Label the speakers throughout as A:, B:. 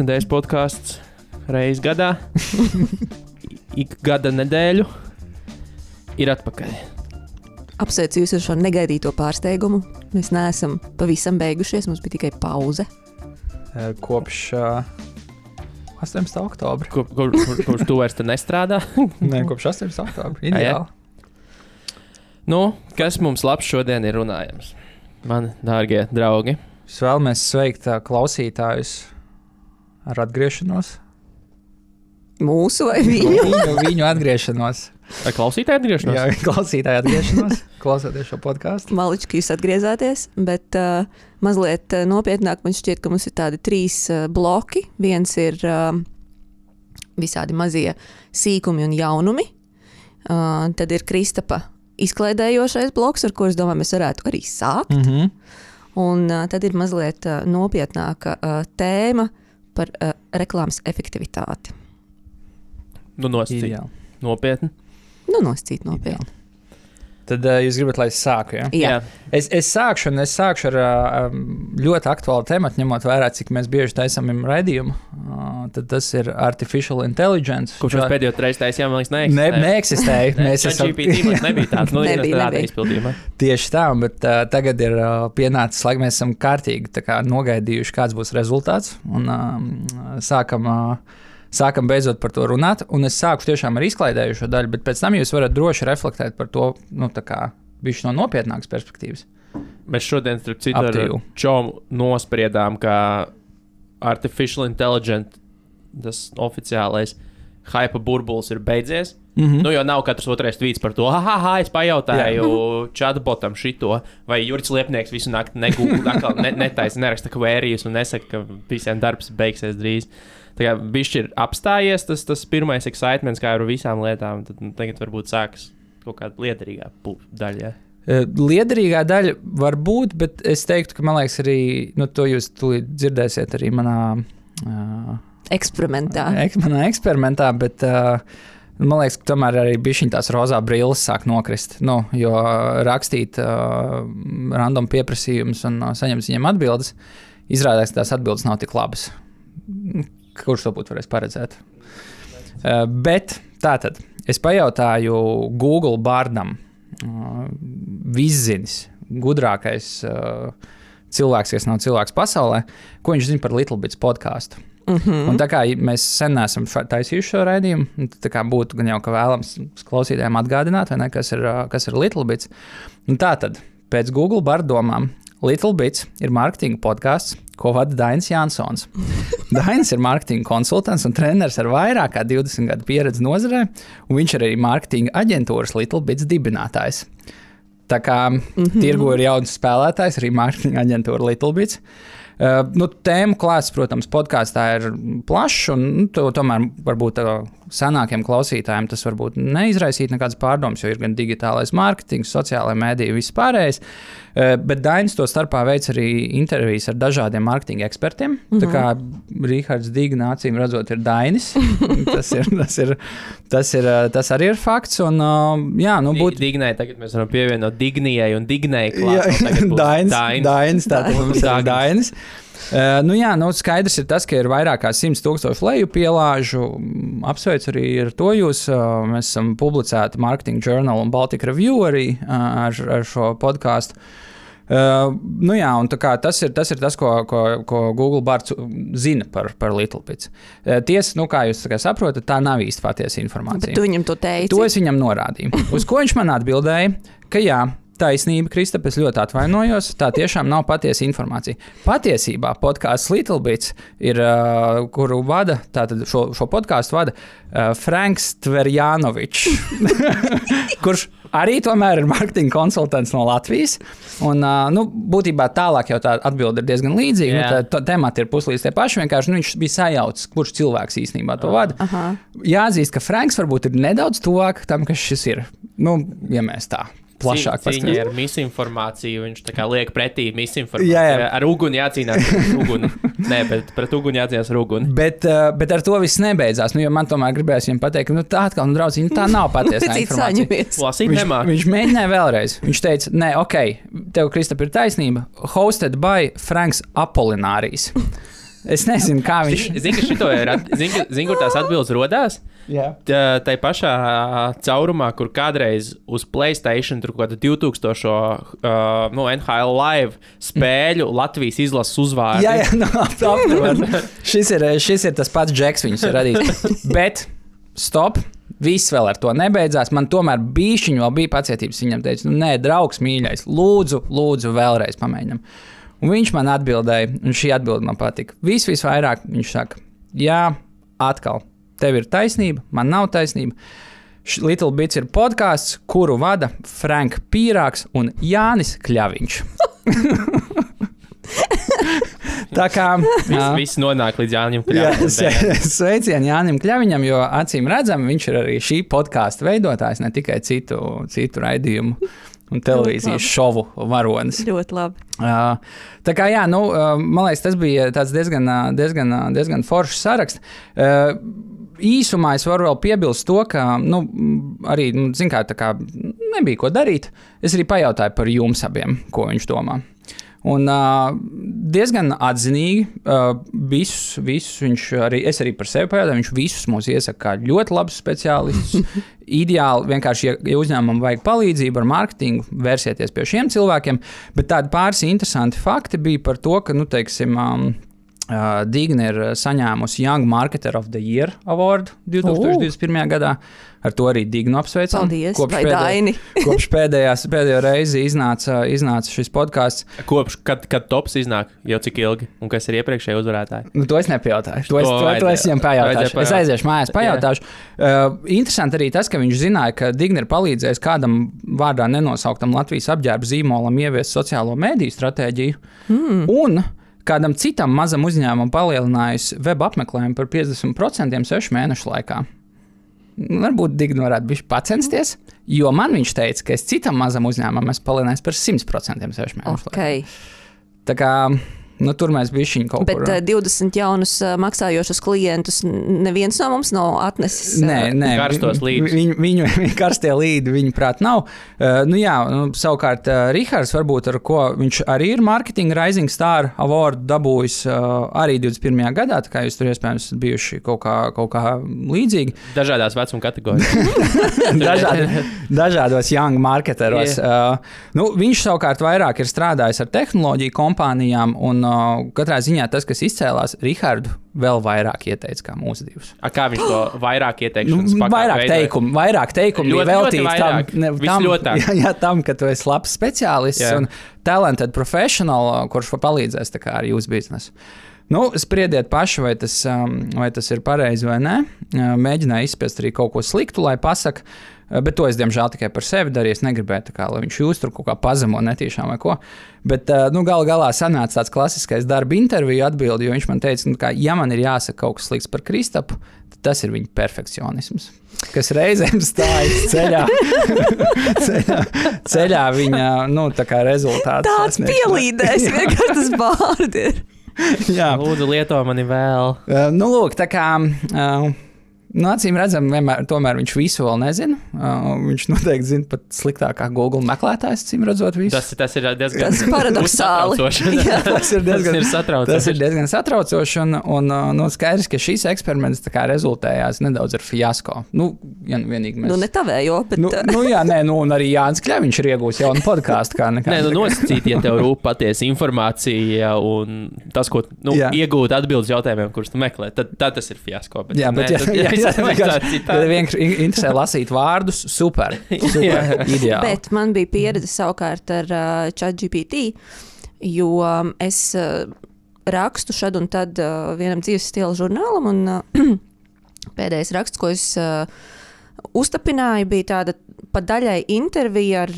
A: Iknedēļas podcasts reiz gadā. Ik gada nedēļu ir atpakaļ.
B: Apsveicu jūs ar šo negaidīto pārsteigumu. Mēs neesam pavisam beigušies, mums bija tikai pauze.
C: Kopš 18. oktobra.
A: Kurš tu vairs te nestrādā?
C: Nē, kopš 18. oktobra. Ideāli.
A: Nu, kas mums labs šodien ir runājams? Mani dārgie draugi.
C: Es vēlamies sveikt klausītājus ar atgriešanos.
B: Mūsu vai viņu?
C: Viņu atgriešanos.
A: Vai klausītāji atgriešanos?
C: Jā, klausītāji atgriešanos. Klausoties šo podcastu.
B: Malički, jūs atgriezāties, bet mazliet nopietnāk man šķiet, ka mums ir tādi 3 bloki. Viens ir visādi mazie sīkumi un jaunumi. Tad ir Kristapa izklaidējošais bloks, ar ko es domāju, mēs varētu arī sākt. Un tad ir mazliet nopietnāka tēma par reklāmas efektivitāti.
A: Nu, nosacīt. Nopietni.
B: Nu, nosacīt nopietni.
C: Tad jūs gribat, lai es sāku, ja?
B: Jā.
C: Es sākšu ar ļoti aktuālu tematu, ņemot vērā, cik mēs bieži taisam raidījumu. Tad tas ir artificial intelligence.
A: Kurš mēs pēdējo reizi taisījām, man liekas,
C: neeksistēja.
A: ChatGPT nebija tāds.
B: Nebija.
A: Izpildījumā.
C: Tieši tā, bet tagad ir pienācis laiks, mēs esam kārtīgi nogaidījuši, kāds būs rezultāts. Un sākam beidzot par to runāt, un es sāku tiešām ar izklaidējušo daļu, bet pēc tam jūs varat droši reflektēt par to, bišķi no nopietnākas perspektīvas.
A: Mēs šodien, starp citu, ar Čomu nospriedām, ka artificial intelligence, tas oficiālais hype burbulis ir beidzies. Nu, jo nav katrs otrais tvīts par to, es pajautāju chatbotam šito, vai Jurits Liepnieks visu nakti netaisa, neraksta kvērijas un nesaka, ka visiem darbs beigsies drīz. Tā kā bišķi ir apstājies tas pirmais excitements, kā ar visām lietām, tad tagad varbūt sākas kaut kāda liederīgā daļa. Ja?
C: Liederīgā daļa var būt, bet es teiktu, ka man liekas arī, to jūs tūlīt dzirdēsiet arī manā
B: eksperimentā.
C: Manā eksperimentā, bet man liekas, ka tomēr arī bišķiņ tās rozā brilles sāk nokrist, jo rakstīt random pieprasījumus un saņemt viņiem atbildes, izrādās, ka tās atbildes nav tik labas. Kurš to būtu varēs paredzēt? Bet tātad, es pajautāju Google Bardam, viszinis, gudrākais cilvēks, kas nav cilvēks pasaulē, ko viņš zina par Little Bits podcastu. Un tā kā mēs sen neesam taisījuši šo raidījumu, tā kā būtu gan jau ka vēlams klausītājiem atgādināt, vai ne, kas ir Little Bits. Un tātad, pēc Google Barddomām, Little Bits ir marketinga podcasts, ko vada Dainis Jansons. Dainis ir marketinga konsultants un treneris ar vairāk kā 20 gadu pieredzi nozarē, un viņš ir arī marketinga aģentūras Little Bits dibinātājs. Tā kā tirgu ir jauns spēlētājs, arī marketinga aģentūra Little Bits. Tēmu klāsts, protams, podkāstā ir plašs, un tomēr varbūt senākiem klausītājiem tas varbūt neizraisīt nekādas pārdomas, jo ir gan digitālais mārketings, sociālai mēdīji, viss pārējais. Bet Dainis to starpā veic arī intervijas ar dažādiem mārketinga ekspertiem. Tā kā Rihards Digna acīm redzot ir Dainis. Tas arī ir fakts. Un,
A: Dignai tagad mēs varam pievienot Dignijai un Dignai klāt.
C: Dainis, tātad mums ir Dainis. Skaidrs ir tas, ka ir vairāk kā 100,000 lejupielāžu. Apsveicu arī ar to jūs. Mēs esam publicēti Marketing Journal un Baltic Review arī ar šo podcastu. Un tā kā tas ir tas, ko Google Bards zina par Little Bits. Tiesa, kā jūs saprotat, tā nav īsti patiesa informācija.
B: Bet tu viņam to teici?
C: To es viņam norādīju. Uz ko viņš man atbildēja, ka jā, taisnība, Kristap, es ļoti atvainojos, tā tiešām nav patiesa informācija. Patiesībā podkāsts Little Bits ir, kuru vada, tātad šo podkāstu vada Franks Tverjanovičs, kurš arī tomēr ir marketinga konsultants no Latvijas. Un, būtībā tālāk jau tā atbilde ir diezgan līdzīga. Temati ir puslīdz tie paši, vienkārši viņš bija sajaucis, kurš cilvēks īstenībā to vada. Jāatzīst, ka Franks varbūt ir nedaudz tuvāk tam, kas šis ir. Ja mēs tā plašāk
A: cīņa ar misinformāciju, viņš tā kā liek pretī misinformāciju. Ar uguni jācīnās ar uguni. Nē, bet pret uguni jācīnās ar uguni.
C: Bet ar to viss nebeidzās. Jo man tomēr gribējās viņam pateikt, ka tā atkal, draudziņ, tā nav patiesā informācija. Viņš mēģināja vēlreiz. Viņš teica, nē, tev, Kristap, ir taisnība. Hosted by Franks Apolinarijs. Es nezinu, kā viņš...
A: Zini, kur tās atbildes rodās? Tā pašā caurumā, kur kādreiz uz PlayStation tur kāda 2000 NHL live spēļu Latvijas izlases uzvārdi.
C: Jā, šis ir tas pats Džeks, viņus ir radījis. Bet, stop! Viss vēl ar to nebeidzās. Man tomēr bīšķiņi vēl bija pacietības. Viņam teica, nē, draugs mīļais, lūdzu vēlreiz pamēģinam. Un viņš man atbildēja, un šī atbilde man patika. Visvairāk viņš saka, jā, atkal, tev ir taisnība, man nav taisnība. Little Bits ir podcasts, kuru vada Frank Pīrāks un Jānis Kļaviņš. Tā kā
A: viss nonāk līdz Jānim Kļaviņam.
C: Sveicieni Jānim Kļaviņam, jo acīm redzam, viņš ir arī šī podkāsta veidotājs, ne tikai citu raidījumu un televīzijas šovu varonis.
B: Ļoti labi.
C: Tā kā jā, man liekas, tas bija tāds diezgan foršs saraksts. Īsumā es varu vēl piebilst to, ka arī, zin kā, tā kā nebija ko darīt. Es arī pajautāju par jums abiem, ko viņš domā. Un diezgan atzinīgi visus viņš arī, es arī par sevi pajautāju, viņš visus mūs iesaka kā ļoti labus speciālistus. Ideāli vienkārši, ja uzņēmumam vajag palīdzību ar mārketingu, vērsieties pie šiem cilvēkiem, bet tādi pāris interesanti fakti bija par to, ka, teiksim, Digna ir saņēmusi Young Marketer of the Year Award 2021. Gadā. Ar to arī Dignu apsveicam.
B: Paldies,
C: kopš pēdējo reizi iznāca šis podcasts.
A: Kopš, kad tops iznāk, jau cik ilgi, un kas ir iepriekšēji uzvarētāji?
C: To es nepajautāšu. To es viņam pajautāšu. Es aiziešu mājās, pajautāšu. Interesanti arī tas, ka viņš zināja, ka Digna ir palīdzējis kādam vārdā nenosauktam Latvijas apģērba zīmolam ieviest sociālo mediju stratēģiju. Un kādam citam mazam uzņēmumam palielinājusi web apmeklējumu par 50% 6 mēnešu laikā. Varbūt Digna varētu bišķi pacensties, jo man viņš teica, ka es citam mazam uzņēmumam esmu palielinājis par 100% 6 mēnešu laikā. Tā kā tur mēs bišķiņi kaut kur.
B: Bet 20 jaunus maksājošus klientus neviens no mums nav atnesis.
C: Nē,
A: karstos līdus.
C: Viņu karstie līdi, viņa prāt, nav. Savukārt Rihards, varbūt ar ko viņš arī ir Marketing Rising Star Award dabūjis arī 21. gadā, tā kā jūs tur iespējams bijuši kaut kā līdzīgi.
A: Dažādās vecuma kategorijās.
C: Dažādos young marketeros. Viņš savukārt vairāk ir strādājis ar tehnoloģiju kompānijām un katrā ziņā tas, kas izcēlās, Rihardu vēl vairāk ieteica kā mūsu divus.
A: Kā viņš to vairāk ieteikšanas
C: vairāk teikumu bija veltīts tam, ka tu esi labs speciālists un talented professional, kurš palīdzēs tā kā ar jūsu biznesu. Spriediet paši, vai tas ir pareizi vai nē. Mēģināju izspiest arī kaut ko sliktu, lai pasaka, bet to es, diemžēl, tikai par sevi darīju. Es negribēju, lai viņš jūs tur kaut kā pazemo netīšām vai ko. Bet galā sanāca tāds klasiskais darba interviju atbildi, jo viņš man teica, ja man ir jāsaka kaut kas slikts par Kristapu, tad tas ir viņa perfekcionisms, kas reizēm stājas ceļā viņa, tā kā rezultāts.
B: Tāds pielīdēs, vienkārši tas vārdi ir.
C: Jā.
A: Lūdzu, lieto mani vēl.
C: Lūk, tā kā... acīm redzam, tomēr viņš visu vēl nezina. Viņš noteikti zina pat sliktākā Google meklētājs, acīm redzot visu.
A: Tas ir diezgan
B: paradoxāli.
C: Tas ir diezgan satraucoši. Un skaidrs, ka šīs eksperiments tā kā rezultējās nedaudz ar fiasko. Ja vienīgi mēs...
B: ne tavējo, bet...
C: un arī Jānis Kļaviņš ir iegūs jaunu podkāstu.
A: Nosacīt, ja tev rūp patiesa informācija un tas, ko iegūt atbildes jautājumiem, kurus tu meklē, tad tas ir fiasko. Ja vienkārši interesē lasīt vārdus, super, ideāli.
B: Bet man bija pieredze savukārt ar ChatGPT, jo es rakstu šad un tad vienam dzīves stila žurnālam, un pēdējais raksts, ko es uztapināju, bija tāda pa daļai intervija ar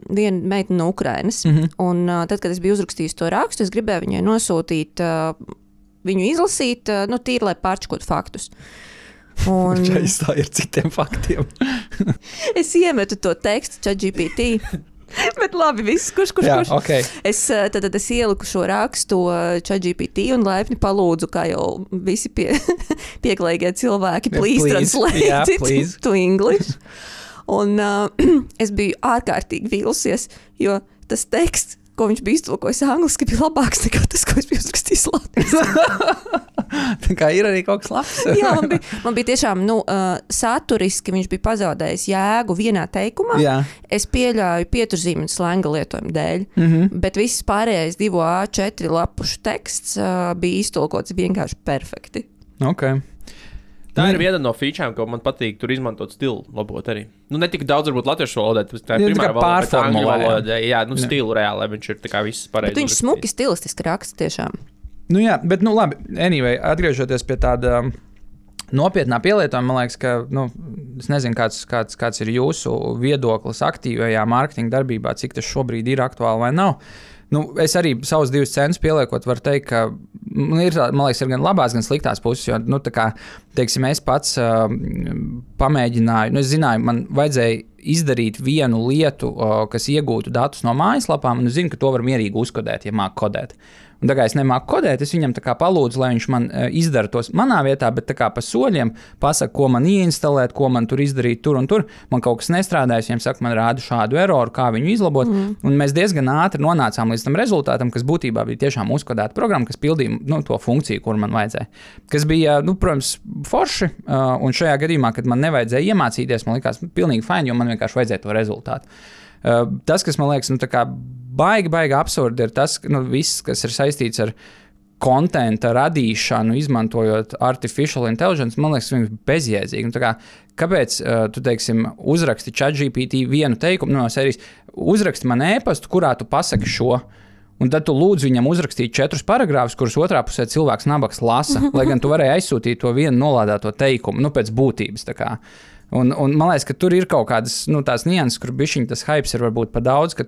B: vienu meiteni no Ukrainas. Un tad, kad es biju uzrakstījis to rakstu, es gribēju viņai nosūtīt, viņu izlasīt, tīri, lai pārčakot faktus. Un...
C: ir citiem faktiem.
B: Es iemetu to tekstu ChatGPT. Bet labi, viss, kurš.
C: Okay.
B: Es ieliku šo rakstu ChatGPT un laipni palūdzu, kā jau visi pieklājīgie cilvēki, please translate it to English. Un es biju ārkārtīgi vīlusies, jo tas teksts, ko viņš bija iztulkojis angliski, bija labāks nekā tas, ko es biju uzrakstījis latviski.
C: Tā kā ir arī kaut kas labs.
B: Jā, man bija tiešām, saturiski viņš bija pazaudējis jēgu vienā teikumā.
C: Jā.
B: Es pieļauju pieturzīmi un slenga lietojumu dēļ, bet viss pārējais 2 A4 lapušu teksts bija iztulkots vienkārši perfekti.
C: Okay.
A: Tā ir viena no featurēm, ko man patīk tur izmantot stilu labot arī. Ne tik daudz varbūt latviešu valodā, tā ir primāra valoda, bet angļu valodā, stilu reāli, lai viņš ir tā kā viss pareizi.
B: Bet viņš smuki stilistiski raksta tiešām.
C: Jā, bet labi, anyway, atgriežoties pie tāda nopietnā pielietojuma, man liekas, ka, es nezinu, kāds ir jūsu viedoklis aktīvajā mārketinga darbībā, cik tas šobrīd ir aktuāli vai nav. Es arī savus 2 centus pieliekot, varu teikt, ka man liekas, ir gan labās, gan sliktās puses, jo, tā kā, teiksim, es pats pamēģināju, es zināju, man vajadzēja izdarīt vienu lietu, kas iegūtu datus no mājaslapām, un es zinu, ka to var mierīgi uzkodēt, ja māk kodēt. Un tā kā es nemāku kodēt, es viņam tā kā palūdzu, lai viņš man izdara tos manā vietā, bet tā kā pa soļiem pasaka, ko man ieinstalēt, ko man tur izdarīt tur un tur. Man kaut kas nestrādājas, viņam saka, man rāda šādu eroru, kā viņu izlabot. Un mēs diezgan ātri nonācām līdz tam rezultātam, kas būtībā bija tiešām uzkodēta programma, kas pildīja to funkciju, kur man vajadzēja. Kas bija, protams, forši, un šajā gadījumā, kad man nevajadzēja iemācīties, man likās pilnīgi fajn, jo man vienkārši vajadzēja to rezultātu. Tas, kas man liekas, tā kā baigi absurdi, ir tas, ka viss, kas ir saistīts ar kontenta radīšanu, izmantojot artificial intelligence, man liekas, viņš ir bezjēdzīgi. Kāpēc tu, teiksim, uzraksti ChatGPT vienu teikumu no sērijas, uzraksti man e-pastu, kurā tu pasaki šo, un tad tu lūdzu viņam uzrakstīt 4 paragrāfus, kurus otrā pusē cilvēks nabaks lasa, lai gan tu varēji aizsūtīt to vienu nolādēto teikumu, pēc būtības. Un man liekas, ka tur ir kaut kādas tās nianses, kur bišķiņ tas hypes ir varbūt pa daudz, ka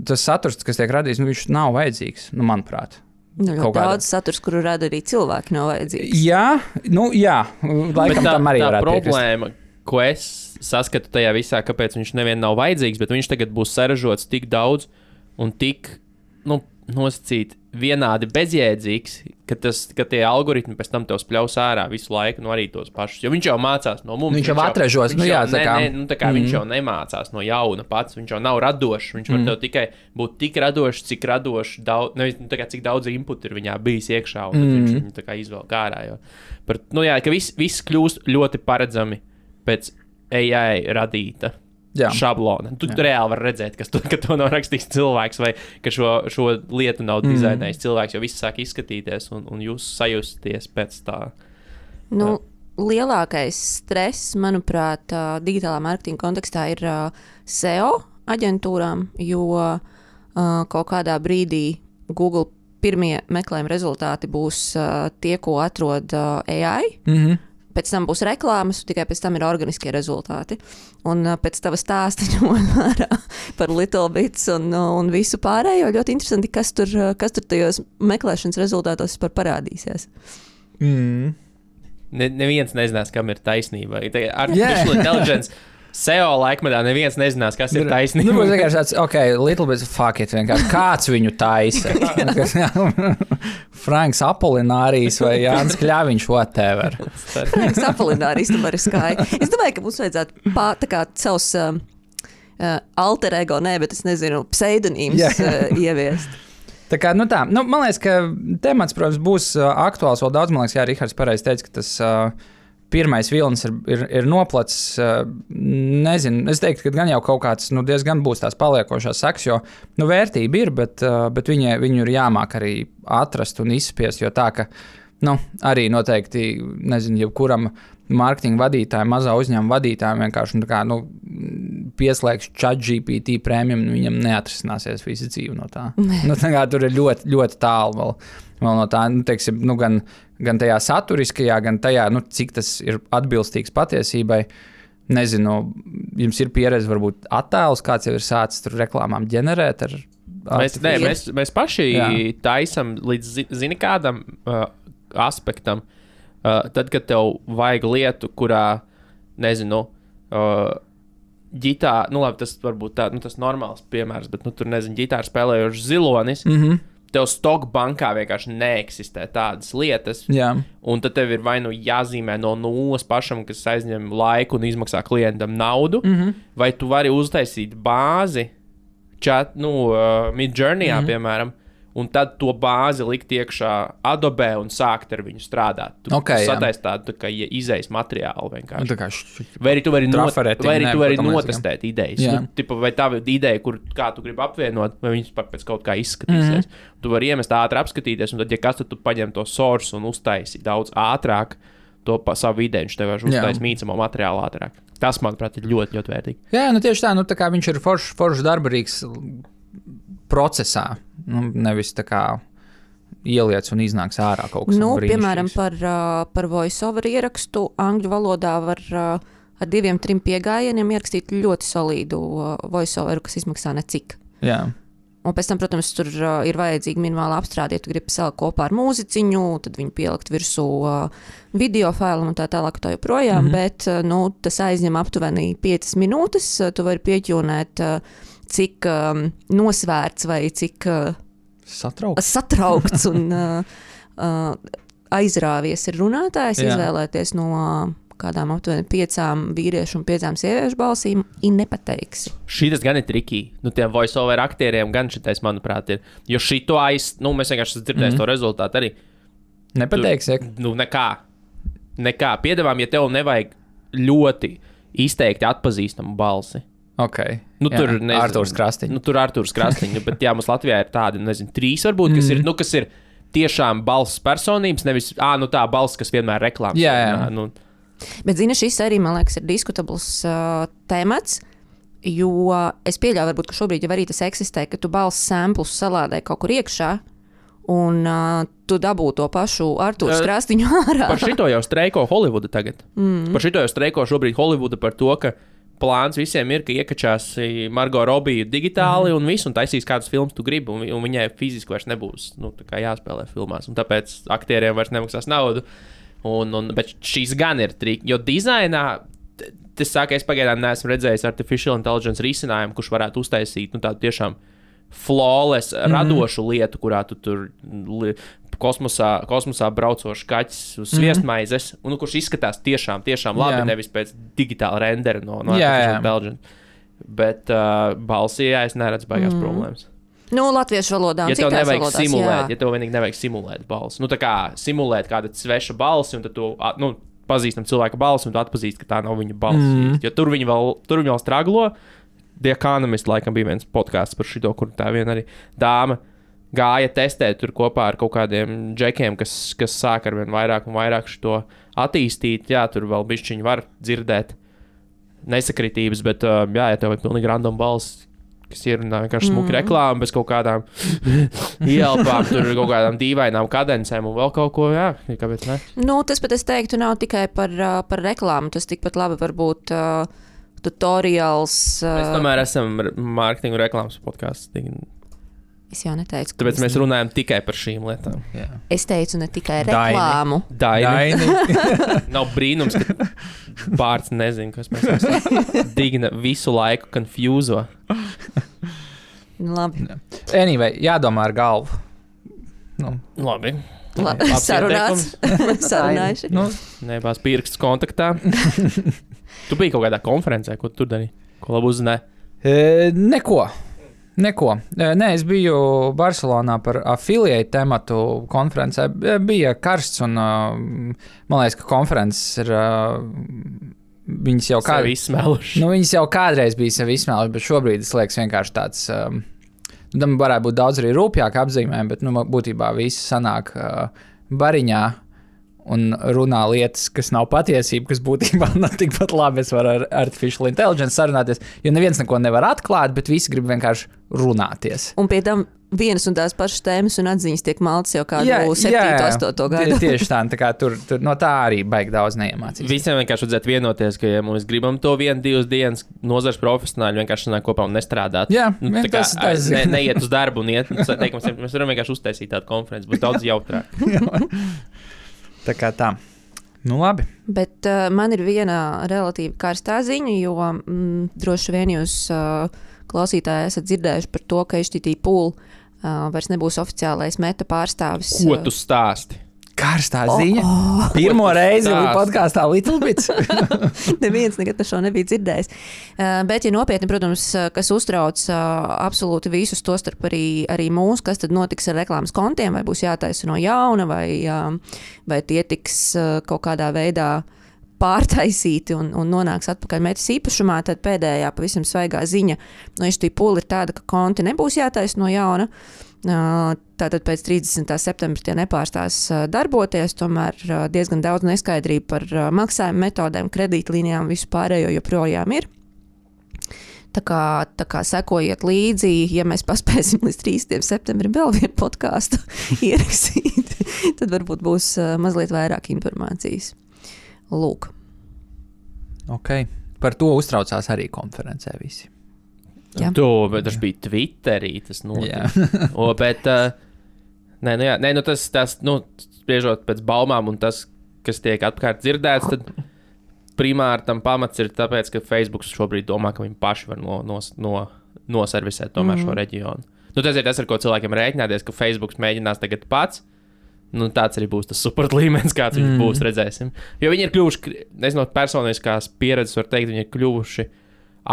C: tas saturs, kas tiek radīts, viņš nav vajadzīgs, manuprāt.
B: Daudz saturs, kuru rada arī cilvēki, nav vajadzīgs.
C: Jā, laikam tam arī varētu piekrist.
A: Tā problēma, ko es saskatu tajā visā, kāpēc viņš nevien nav vajadzīgs, bet viņš tagad būs saražots tik daudz un tik, nosacīt vienādi bezjēdzīgs, ka tie algoritmi pēc tam tev spļaus ārā visu laiku, arī tos pašus. Jo viņš jau mācās no mums.
C: Viņš jau atražos.
A: Viņš jau nemācās no jauna pats, viņš jau nav radošs. Viņš var tev tikai būt tik radošs, cik radošs, cik daudz input ir viņā bijis iekšā, un tad viņš viņu tā kā izvelk ārā. Ka viss kļūst ļoti paredzami pēc AI radīta. Šablona. Tu reāli vari redzēt, ka to nav rakstījis cilvēks, vai ka šo lietu nav dizainējis cilvēks, jo viss sāk izskatīties, un jūs sajusties pēc tā.
B: Lielākais stress, manuprāt, digitālā mārketinga kontekstā ir SEO aģentūrām, jo kaut kādā brīdī Google pirmie meklējuma rezultāti būs tie, ko atrod AI. Pēc tam būs reklāmas, tikai pēc tam ir organiskie rezultāti. Un pēc tava stāsta par Little Bits un visu pārējo, ļoti interesanti, kas tur tajos meklēšanas rezultātos parādīsies.
A: Neviens nezinās, kam ir taisnība. Artificial intelligence SEO laikmetā neviens nezinās, kas ir taisnība.
C: Būs vienkārši tāds, Little Bits, fuck it, vienkārši kāds viņu taisa. Franks Apolinārijas vai Jānis Kļaviņš, whatever.
B: Franks Apolinārijas, tu vari skāji. Es domāju, ka mums vajadzētu savus alter ego, bet es nezinu, pseidonīmus ieviest.
C: Man liekas, ka temats, protams, būs aktuāls vēl daudz. Man liekas, Rihards pareizi teica, ka tas pirmais vilnis ir noplacis. Nezinu, es teiktu, ka gan jau kaut kāds diezgan būs tās paliekošās sekas, jo vērtība ir, bet viņu ir jāmāk arī atrast un izspiest, jo tā, ka arī noteikti, nezinu, jebkuram mārketinga vadītājiem, mazā uzņēmuma vadītājiem vienkārši pieslēgš ChatGPT premium, viņam neatrisināsies visa dzīve no tā. Tur ir ļoti, ļoti tālu vēl no tā, teiksim, gan tajā saturiskajā, gan tajā, cik tas ir atbilstīgs patiesībai. Nezinu, jums ir pieredze, varbūt attēlus, kāds jau ir sācis tur reklāmām ģenerēt ar...
A: Mēs paši taisam līdz kādam aspektam. Tad, kad tev vajag lietu, kurā, nezinu, ģitāra, tas varbūt tā, tas normāls piemērs, bet, tur, nezinu, ģitāra spēlējošs zilonis, tev stock bankā vienkārši neeksistē tādas lietas, un tad tev ir vai jāzīmē no nulles pašam, kas aizņem laiku un izmaksā klientam naudu, vai tu vari uztaisīt bāzi, Midjourneyā, piemēram, un tad to bāzi likt iekšā Adobe un sākt ar viņu strādāt. Tu sataisi tādu kā izejas materiālu vienkārši. Vai arī tu vari notestēt idejas. Vai tā ideja, kā tu gribi apvienot, vai viņas pēc kaut kā izskatīsies. Tu vari iemest ātri apskatīties, un tad, ja kas tu paņem to source un uztaisi daudz ātrāk to savu ideju, viņš tev var uztaisīt mīcamo materiālu ātrāk. Tas, manuprāt, ir ļoti, ļoti vērtīgi.
C: Jā, tieši tā, tā kā viņš ir foršs darbarīgs procesā, nevis tā kā ieliec un iznāks ārā kaut kas brīnišķīgs.
B: Piemēram, par voice-over ierakstu angļu valodā var ar 2-3 piegājieniem ierakstīt ļoti solīdu voice-over, kas izmaksā necik.
C: Jā.
B: Un pēc tam, protams, tur ir vajadzīga minimāla apstrāde, ja tu gribi salikt kopā ar mūziķiņu, tad viņu pielikt virsū video failam un tā tālāk, tā joprojām, bet tas aizņem aptuveni 5 minūtes. Tu vari pieķūnēt, cik nosvērts vai cik satraukts un aizrāvies ir runātājs, izvēlēties no kādām aptuveni 5 vīriešu un 5 sieviešu balsīm, nepateiksi.
A: Šis gan ir trikī. Tiem voice-over aktieriem gan šitais, manuprāt, ir. Jo šito mēs vienkārši dzirdējām to rezultātu arī.
C: Nepateiksi?
A: Nekā. Piedāvām, ja tev nevajag ļoti izteikti atpazīstamu balsi.
C: Okay.
A: Tur
C: Artūrs Krastiņš.
A: Tur Artūrs Krastiņš, bet mums Latvijā ir tādi, 3 varbūt, kas ir tiešām balss personības, nevis tā balss, kas vienmēr reklāmas.
C: Jā.
B: Bet, šis arī, man liekas, ir diskutabls temats, jo es pieļauju, varbūt, ka šobrīd jau arī tas eksistē, ka tu balss samplus salādē kaut kur iekšā, un tu dabū to pašu Artūru Krastiņu ārā.
A: Par šito jau streiko Holivuda tagad. Par šito jau streiko šobrīd Holivuda par to, ka plāns visiem ir, ka iekačās Margot Robbie digitāli un visu, un taisīs kādus filmus tu gribi, un viņai fiziski vairs nebūs jāspēlē filmās, un tāpēc aktieriem vairs nemaksās naudu. Bet šīs gan ir triki, jo dizainā, es pagaidām neesmu redzējis artificial intelligence risinājumu, kurš varētu uztaisīt tādu tiešām flawless, radošu lietu, kurā tu tur kosmosā braucošs kaķis uz sviestmaizes, un kurš izskatās tiešām labi, nevis pēc digitāla rendera no artificial intelligence. Bet balsī, es neredzu baigās problēmas.
B: Latviešu valodā un citās valodās.
A: Ja tev vienīgi nevajag simulēt balsi. Tā kā simulēt kāda sveša balsi, un tad tu pazīstam cilvēka balsi, un tu atpazīsti, ka tā nav viņa balss. Jo tur viņi vēl straglo. The Economist laikam bija viens podcasts par šito, kur tā viena arī dāma gāja testēt tur kopā ar kaut kādiem džekiem, kas sāk ar vien vairāk un vairāk šito attīstīt. Jā, tur vēl bišķiņi var dzirdēt nesakritības, bet ja tev ir pilnīgi random balss, kas ierunā vienkārši smuki reklāmu bez kaut kādām ielpām, tur kaut kādām dīvainām kadencēm un vēl kaut ko, kāpēc ne?
B: Tas pat es teiktu nav tikai par reklāmu, tas tikpat labi var būt tutorials.
A: Mēs tomēr esam mārketingu reklāmas podcasts.
B: Es jau neteicu.
A: Tāpēc mēs runājam tikai par šīm lietām.
B: Jā. Es teicu ne tikai reklāmu.
A: Daini. Nav brīnums, ka Bārts nezina, kas mēs esam. Digna visu laiku konfūzo.
B: Labi.
C: Anyway, jādomā ar galvu.
A: Labi.
B: Sarunājuši.
A: Nebās pirksts kontaktā. Tu biji kaut kādā konferencē, ko tu tur darīji? Ko labu uzzināji?
C: Neko. Nē, es biju Barcelonā par affiliate tematu konferencē. Bija karsts un man liekas, ka konferences ir... Viņas jau viņas jau kādreiz bija sevi izsmēluši, bet šobrīd es liekas vienkārši tāds... Tam varētu būt daudz arī rūpjāk apzīmējumi, bet būtībā visi sanāk bariņā un runā lietas, kas nav patiesība, kas būtībā nav tikpat labi. Es varu ar artificial intelligence sarunāties, jo neviens neko nevar atklāt, bet visi grib vienkārši runāties.
B: Un pie tam vienas un tās pašas tēmas un atziņas tiek maltas jau kādu 7, 8 gadu.
C: Tieši tā kā tur no tā arī baigi daudz neiemācīs.
A: Visiem vienkārši vajadzētu vienoties, ka, ja mēs gribam to 1-2 dienas nozars profesionāļi vienkārši sanāk kopā un nestrādāt.
C: Jā,
A: neiet uz darbu un iet. Mēs varam vienkārši uztaisīt tādu konferenci, būs daudz jautrāk.
C: Tā kā tā. Labi.
B: Bet man ir viena relatīvi karstā ziņa, jo droši vien jūs klausītāji esat dzirdējuši par to, ka HTTP Pool vairs nebūs oficiālais Meta pārstāvis.
A: Ko tu stāsti?
C: Karstā ziņa. Pirmo reizi podkāstā Little Bits.
B: Neviens nekad par šo nebija dzirdējis. Bet, ja nopietni, protams, kas uztrauc absolūti visus, tostarp arī mūs, kas tad notiks ar reklāmas kontiem, vai būs jātaisa no jauna, vai tie tiks kaut kādā veidā pārtaisīti un nonāks atpakaļ Metas īpašumā, tad pēdējā pavisam svaigā ziņa no HTPool ir tāda, ka konti nebūs jātaisa no jauna. Tātad pēc 30. septembra tie nepārstās darboties, tomēr diezgan daudz neskaidrību par maksājuma metodēm, kredītlīnijām, visu pārējo joprojām ir. Tā kā sekojiet līdzi, ja mēs paspēsim līdz 30. septembrim vēl vienu podkāstu ierakstīt, tad varbūt būs mazliet vairāk informācijas. Lūk.
C: Ok, par to uztraucās arī konferencē visi.
A: Bet tas bija Twitterī, tas notika. Bet, tas, spriežot pēc baumām un tas, kas tiek apkārt dzirdēts, tad primāri tam pamats ir tāpēc, ka Facebook šobrīd domā, ka viņi paši var noservisēt tomēr šo reģionu. Tas ir tas, ar ko cilvēkiem rēķināties, ka Facebook mēģinās tagad pats. Tāds arī būs tas support līmenis, kāds viņš būs, redzēsim. Jo viņi ir kļuvuši, nezinu, personiskās pieredzes, var teikt, viņi ir kļuvuši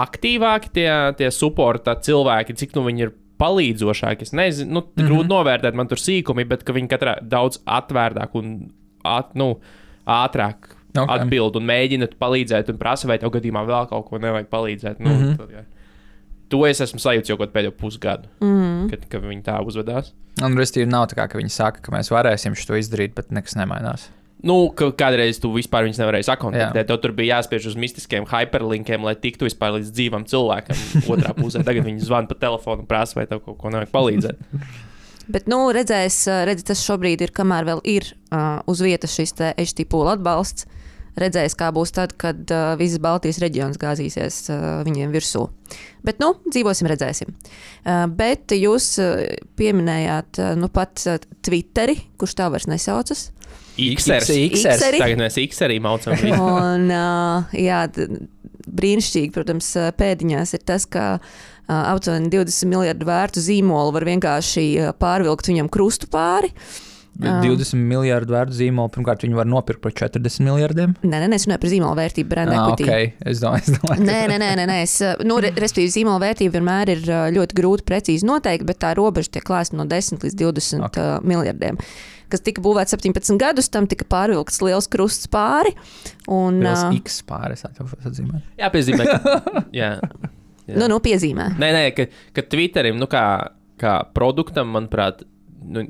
A: aktīvāki tie supporta cilvēki, cik viņi ir palīdzošāki. Es nezinu, grūti novērtēt, man tur sīkumi, bet ka viņi katrā daudz atvērtāk un ātrāk atbild un mēģina palīdzēt un prasa, vai tev gadījumā vēl kaut ko nevajag palīdzēt. To es esmu sajūts jau pēdējo pusgadu, kad viņi tā uzvedās.
C: Un restīvi nav tā kā, ka viņi saka, ka mēs varēsim šo izdarīt, bet nekas nemainās.
A: Kādreiz tu vispār viņus nevarēji sakontaktēt. Tev tur bija jāspiež uz mistiskiem hyperlinkiem, lai tiktu vispār līdz dzīvam cilvēkam otrā pusē. Tagad viņi zvana pa telefonu un prasa, vai tev kaut ko nevajag palīdzēt.
B: Bet, redzi, tas šobrīd ir, kamēr vēl ir uz vietas šis te HTPool atbalsts. Redzēs, kā būs tad, kad visas Baltijas reģions gāzīsies viņiem virsū. Bet, dzīvosim, redzēsim. Bet jūs pieminējāt pat Twitteri, kurš tā vairs nesaucas.
A: Xers. Tagad mēs Xerī maucam.
B: Un, brīnišķīgi, protams, pēdiņās ir tas, ka aptuveni 20 miljardu vērtu zīmolu var vienkārši pārvilkt viņam krustu pāri.
C: 20 miljardu vērtu zīmolu, pirmkārt, viņi var nopirkt par 40 miljardiem?
B: Nē, es runāju par zīmolu vērtību, brand equity.
C: Okay. Es domāju.
B: Nē. Respektīvi, zīmola vērtība vienmēr ir ļoti grūti precīzi noteikt, bet tā robeža tiek klāsta no 10 līdz 20 miljardiem. Kas tika būvēts 17 gadus, tam tika pārvilkts liels krusts pāri.
C: Liels X pāri, es atzīmēju.
A: Jā, piezīmē. Jā.
B: Piezīmē.
A: Nē, ka Twitterim, kā produktam, manuprāt,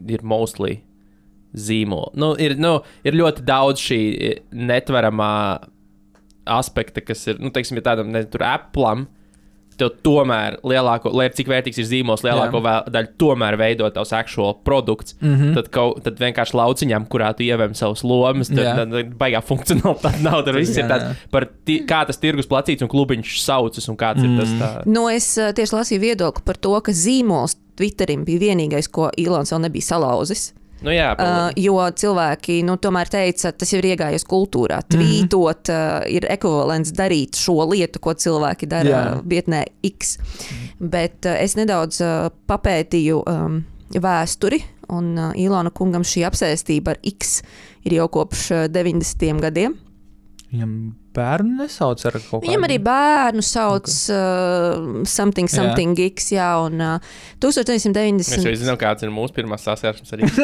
A: ir mostly zīmoli. Ir ļoti daudz šī netveramā aspekta, kas ir, teiksim, ja tādam tur Apple'am, tev tomēr lielāko, lai cik vērtīgs ir zīmols, lielāko daļu tomēr veido tavs actual produkts. Tad vienkārši lauciņām, kurā tu ievēm savus lomas, tad baigā funkcionalitāte nav. Tur viss ir tāds par kā tas tirgus placīts un klubiņš saucas un kāds ir tas tā.
B: Es tieši lasīju viedokli par to, ka zīmols Twitterim bija vienīgais, ko Ilons vēl nebija salauzis. Jo cilvēki tomēr teica, tas jau ir iegājies kultūrā. Tvītot ir ekvivalents darīt šo lietu, ko cilvēki dara vietnē X. Bet es nedaudz papētīju vēsturi, un Ilona kungam šī apsēstība ar X ir jau kopš 90. gadiem.
C: Viņam bērnu nesauc ar kaut kādu?
B: Viņam arī bērnu sauc something X, un 1990...
A: Mēs jau zinām, kāds ir mūsu pirmās saskarsmes ar X.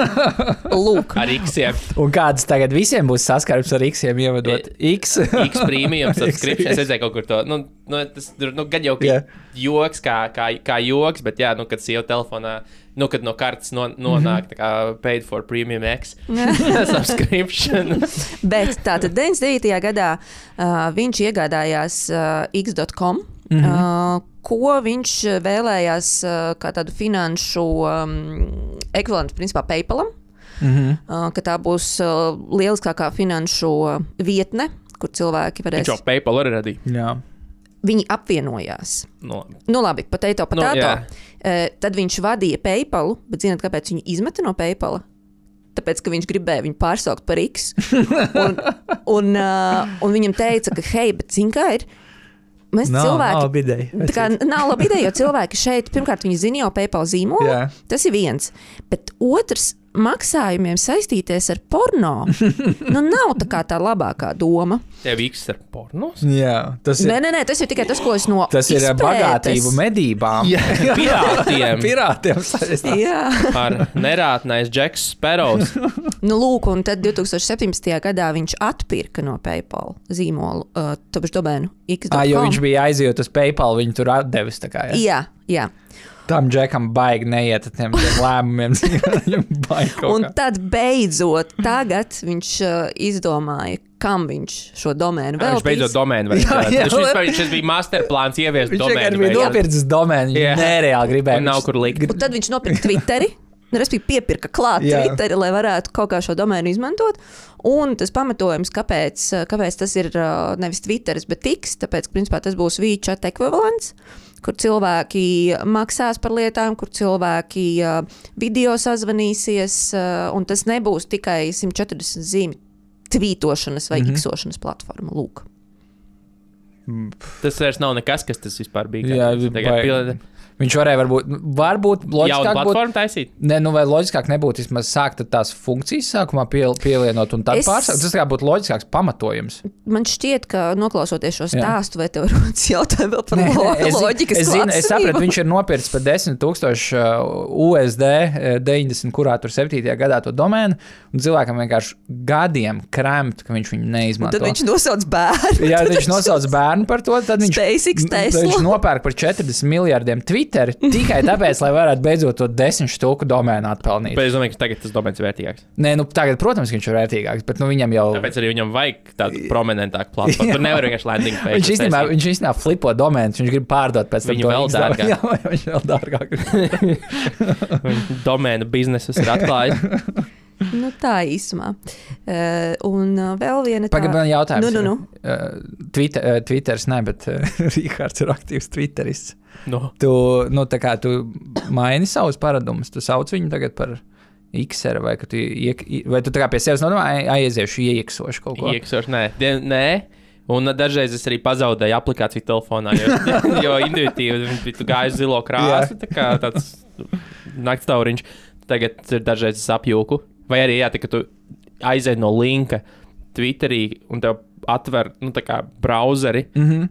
B: Lūk.
A: Ar X-iem.
C: Un kādas tagad visiem būs saskarsmes ar X-iem, ievedot X?
A: X premium subscription. Es redzēju kaut kur to. Tas gan jau joks kā joks, bet kad sieva telefonā, kad no kartes nonāk tā kā paid for premium X subscription.
B: Bet tātad 99. gadā viņš iegādājās X.com, ko viņš vēlējās kā tādu finanšu ekvivalentu principā PayPalam, ka tā būs lieliskākā finanšu vietne, kur cilvēki varēs...
A: Viņš jau PayPal arī radīja.
C: Jā.
B: Viņi apvienojās. Labi, potato. Tad viņš vadīja PayPalu, bet zināt, kāpēc viņu izmeta no PayPala? Tāpēc, ka viņš gribēja viņu pārsaukt par X. Un viņam teica, ka hei, bet zin kā ir? Mēs cilvēki...
C: Nav labi ideja.
B: Nav labi ideja, jo cilvēki šeit, pirmkārt, viņi zina jau PayPal zīmolu. Tas ir viens. Bet otrs, maksājumiem saistīties ar porno, nav tā labākā doma.
A: Tev X ar pornos?
C: Jā, tas ir.
B: Nē, tas ir tikai tas, ko es no
C: Tas ir bagātību medībām.
A: Jā, pirātiem.
C: Pirātiem saistās.
B: Jā.
A: Ar nerātnais Džeks Sparrows.
B: Lūk, un tad 2017. gadā viņš atpirka no PayPal zīmolu, tāpēc domēnu X.com.
C: Jo viņš bija aizjūt uz PayPal, viņu tur atdevis tā kā.
B: Jā.
C: Tam Džekam baigi neiet ar tiem lēmumiem.
B: Un tad beidzot tagad viņš izdomāja, kam viņš šo domēnu veltīs.
A: Viņš beidzot domēnu veltīs. Šis bija masterplāns ieviest domēnu.
C: Viņš bija nopircis domēnu, viņš nereāli gribēja.
A: Un nav kur likt.
B: Un tad viņš nopirka Twitteri. Respektīvi piepirka klāt Twitteri, lai varētu kaut kā šo domēnu izmantot. Un tas pamatojums, kāpēc tas ir nevis Twitteris, bet X, tāpēc, principā, tas būs WeChat ekvivalents, kur cilvēki maksās par lietām, kur cilvēki video sazvanīsies, un tas nebūs tikai 140 zīmi tvītošanas vai iksošanas platforma. Lūk.
A: Tas vairs nav nekas, kas tas vispār bija.
C: Jā, viņš varēja varbūt loģiskāk
A: jaunu platformu taisīt?
C: Nē, vai loģiskāk nebūtu vismaz sākt tās funkcijas sākumā pielienot un tad pārsākt. Tas kā būtu loģiskāks pamatojums.
B: Man šķiet, ka noklausoties šo stāstu, vai tev rodas jautājumi vēl par loģikas klātesību?
C: Es sapratu, viņš ir nopircis par 10,000 USD 90, kurā tur 7. gadā to domēnu, un cilvēkam vienkārši gadiem kremt, ka viņš viņu neizmanto.
B: Un tad viņš nosauc bērnu.
C: Jā, viņš nosauc bērnu par to, tad viņš nopērk par 40 miljardiem Twitter tikai tāpēc, lai varētu beidzot to 10 štuku domēnu atpelnīt.
A: Bet es domāju, ka tagad tas domēns ir vērtīgāks.
C: Nē, tagad, protams, viņš ir vērtīgāks, bet viņam jau...
A: Tāpēc arī viņam vajag tādu prominentāku platformu. Tur nevar vienkārši landing page.
C: Viņš īstenībā flipo domēnus, viņš grib pārdot pēc tam.
A: Viņu vēl dārgāk.
C: Jā, viņš vēl dārgāk.
A: Domēnu biznesus ir atklājis.
B: Tā īsumā. Un vēl viena tā...
C: Pagaidām jautājums.
B: Nu.
C: Twitters ne, bet Rihards ir aktīvs Twitterists.
A: No.
C: Tu maini savus paradumus, tu sauc viņu tagad par X-era, vai tu tā kā pie sevis aiziešu ieksošu kaut ko?
A: Ieksošu, nē. Un dažreiz es arī pazaudēju aplikāciju telefonā, jo intuitīvi tu gāji zilo krāsu, tā kā tāds naktstauriņš. Tagad dažreiz es apjūku. Vai arī, ka tu aizēji no linka Twitterī un tev atver, tā kā brauzeri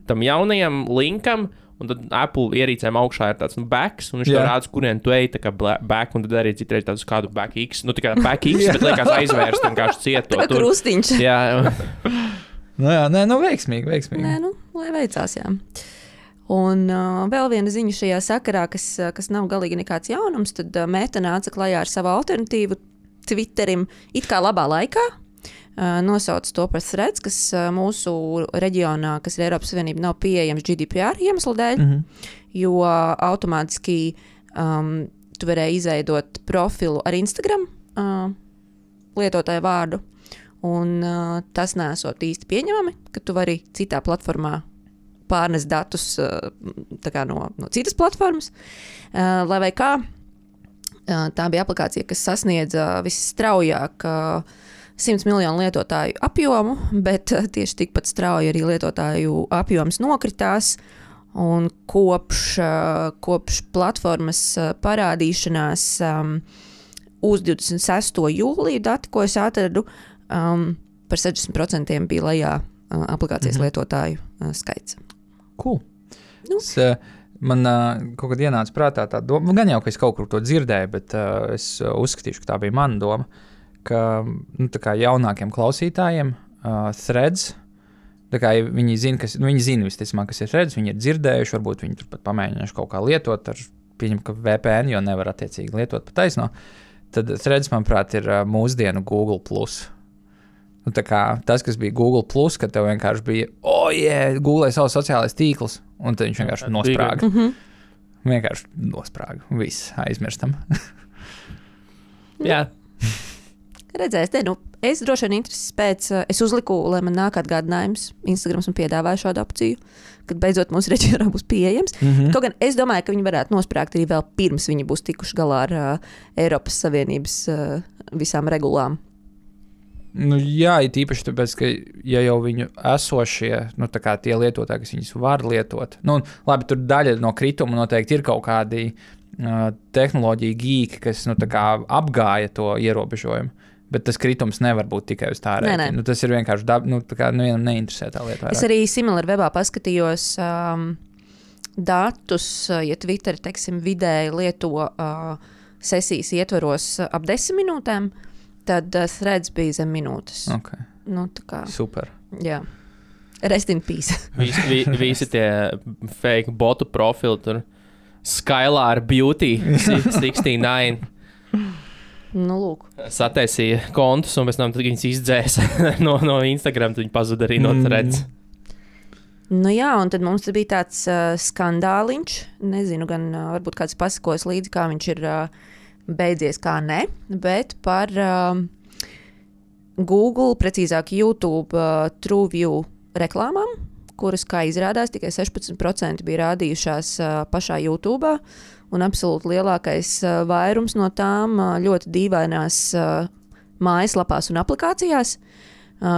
A: tam jaunajam linkam, un tad Apple ierīcēm augšā ir tāds backs, un viņš tev rāda, kurien tu ej, tā kā back, un tad arī citreiz tāds kādu back X, tā kā back X, bet liekas aizvērst vienkārši cieto.
B: Tā kā krustiņš.
A: Jā.
C: Veiksmīgi.
B: Nē, lai veicās, jā. Un vēl viena ziņa šajā sakarā, kas nav galīgi nekāds jaunums, tad Meta nāca klajā ar savu alternatīvu Twitterim it kā labā laikā. Nosauc to par Threads, kas mūsu reģionā, kas ir Eiropas Savienība, nav pieejams GDPR iemeslu dēļ, jo automātiski tu varēji izveidot profilu ar Instagram lietotāju vārdu, un tas nesot īsti pieņemami, ka tu vari citā platformā pārnest datus no citas platformas, lai vai kā. Tā bija aplikācija, kas sasniedza visstraujāk 100 miljonu lietotāju apjomu, bet tieši tikpat strauji arī lietotāju apjoms nokritās. Un kopš platformas parādīšanās uz 26. jūliju dati, ko es atradu, par 60% bija lejā aplikācijas lietotāju skaits.
C: Cool. Man kaut kad ienāca prātā tā doma, gan jau, ka es kaut kur to dzirdēju, bet es uzskatīšu, ka tā bija mana doma, ka tā kā jaunākiem klausītājiem Threads, tā kā viņi zina visticamāk, kas ir Threads, viņi ir dzirdējuši, varbūt viņi tur pat pamēģinājuši kaut kā lietot, pieņem, ka VPN, jo nevar attiecīgi lietot pa taisno, tad Threads, manuprāt, ir mūsdienu Google+. Tā kā tas, kas bija Google+, kad tev vienkārši bija, Google savs sociālais tīkls, un tad viņš vienkārši nosprāga. Vienkārši nosprāga. Viss aizmirstam.
A: Jā.
B: Redzēs, es droši vien intereses pēc, es uzliku, lai man nāk atgādinājums, Instagrams un piedāvāju šādu opciju, kad beidzot mūsu reģionā būs pieejams. Kaut gan es domāju, ka viņi varētu nosprāgt arī vēl pirms viņi būs tikuši galā ar Eiropas Savienības visām regulām.
C: Jā, ir īpaši tāpēc, ka ja jau viņu esošie, tā kā tie lietotāji, kas viņus var lietot, labi, tur daļa no krituma noteikti ir kaut kādi tehnoloģiju geeki, kas tā kā apgāja to ierobežojumu. Bet tas kritums nevar būt tikai uz tā rēķina. Tas ir vienkārši vienam neinteresē tā lieta.
B: Es arī SimilarWebā paskatījos datus, ja Twitter, teiksim, vidēji lieto sesijas ietvaros ap 10 minūtēm, tad threads bija zem minūtes.
C: Okay. Super.
B: Jā. Rest in peace.
A: Visi tie fake botu profili tur. Skylar Beauty 69.
B: Lūk.
A: Sataisīja kontus un pēc tam viņas izdzēsa no Instagram, tad viņi pazuda arī no threads.
B: Jā, un tad mums bija tāds skandāliņš. Nezinu, gan varbūt kāds pasakos līdzi, kā viņš ir beidzies, kā ne, bet par Google, precīzāk YouTube TrueView reklāmām, kuras, kā izrādās, tikai 16% bija rādījušās pašā YouTube, un absolūti lielākais vairums no tām ļoti dīvainās mājaslapās un aplikācijās,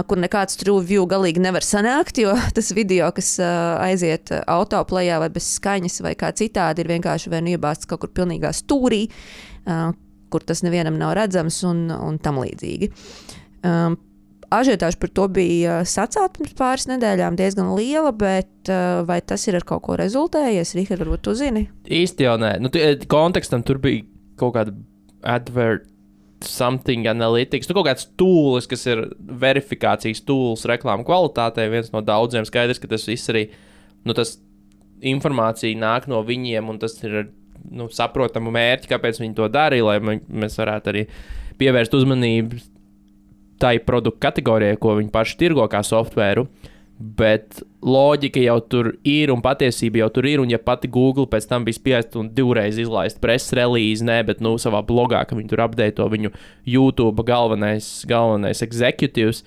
B: kur nekāds TrueView galīgi nevar sanākt, jo tas video, kas aiziet autoplejā vai bez skaņas vai kā citādi, ir vienkārši vien iebāsts kaut kur pilnīgā stūrī, kur tas nevienam nav redzams un tam līdzīgi. Ažiotāža par to bija sacēlta pirms pāris nedēļām diezgan liela, bet vai tas ir ar kaut ko rezultējies? Rihard, varbūt tu zini?
A: Īsti jau nē. Kontekstam tur bija kaut kāda something analytics, kaut kāds tools, kas ir verifikācijas tools reklāmu kvalitātei, viens no daudziem. Skaidrs, ka tas viss arī, tas informācija nāk no viņiem, un tas ir saprotamu mērķi, kāpēc viņi to darīja, lai mēs varētu arī pievērst uzmanību tai produktu kategorijai, ko viņi paši tirgo kā softvēru, bet loģika jau tur ir un patiesība jau tur ir, un ja pati Google pēc tam bija spiest un divreiz izlaist press release, bet savā blogā, ka viņi tur update viņu YouTube galvenais executives,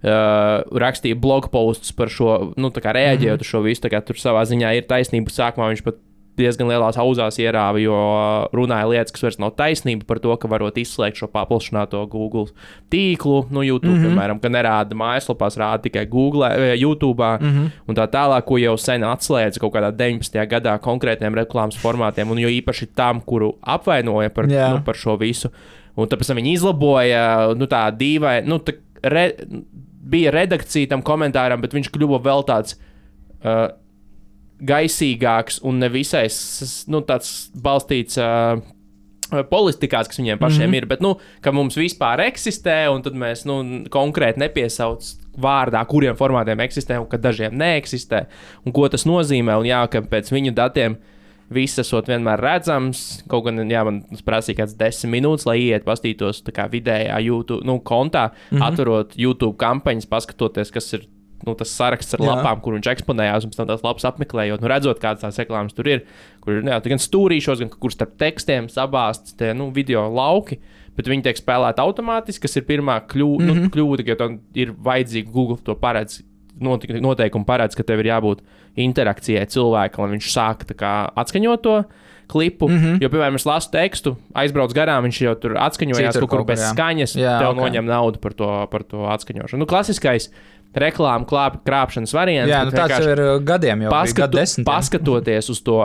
A: rakstīja blog posts par šo, tā kā reaģējot uz šo visu, tā kā tur savā ziņā ir taisnība, sākumā viņš pat diezgan lielās auzās ierāva, jo runāja lietas, kas vairs nav taisnība par to, ka varot izslēgt šo paplašināto Google tīklu, YouTube, piemēram, ka nerāda mājaslapās, rāda tikai Google, YouTube, un tā tālāk, ko jau sen atslēdza kaut kādā 19. gadā konkrētiem reklāmas formātiem, un jo īpaši tam, kuru apvainoja par šo visu. Un tāpēc viņi izlaboja, tā dīvai, bija redakcija tam komentāram, bet viņš kļuva vēl tāds gaisīgāks un nevisai tāds balstīts politikās, kas viņiem pašiem ir, bet ka mums vispār eksistē, un tad mēs konkrēti nepiesauc vārdā, kuriem formātiem eksistē, un ka dažiem neeksistē, un ko tas nozīmē, un ka pēc viņu datiem viss esot vienmēr redzams, kaut gan, man prasīja kāds 10 minūtes, lai iet pastītos tā kā vidējā YouTube, kontā, atverot YouTube kampaņas, paskatoties, kas ir tas saraksts ar lapām, kur viņš eksponējās, un pēc tam tās lapas apmeklējot, redzot, kādas tās reklāmas tur ir, kur ir gan stūrīšos, gan kur starp tekstiem sabāsts tie, video lauki, bet viņi tiek spēlēti automātiski, kas ir pirmā kļūda, ka ir vajadzīgi Google to paredz, noteikumi paredz, ka tev ir jābūt interakcijai cilvēkam, lai viņš sāk tā kā atskaņot to klipu, jo, piemēram, es lasu tekstu, aizbrauc garām, viņš jau tur atskaņojās kaut kur bez skaņas, tev noņem naudu par to atskaņošanu. Klasiskais reklāmu krāpšanas variants.
C: Jā, tāds jau ir gadiem jau gadu desmitiem.
A: Paskatoties uz to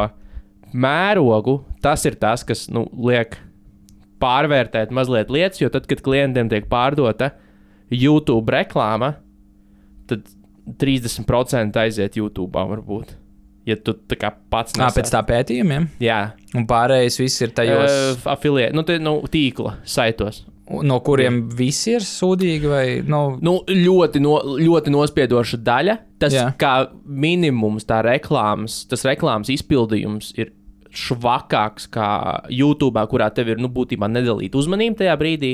A: mērogu, tas ir tas, kas liek pārvērtēt mazliet lietas, jo tad, kad klientiem tiek pārdota YouTube reklāma, tad 30% aiziet YouTube varbūt. Ja tu tā kā pats nesāc.
C: Pēc tā pētījumiem?
A: Jā.
C: Un pārējais viss ir tajos...
A: Affiliate, tīkla saitos.
C: No kuriem visi ir sūdīgi vai...
A: Ļoti nospiedoša daļa. Tas kā minimums tas reklāmas izpildījums ir švakāks kā YouTube, kurā tev ir būtībā nedalīta uzmanība tajā brīdī.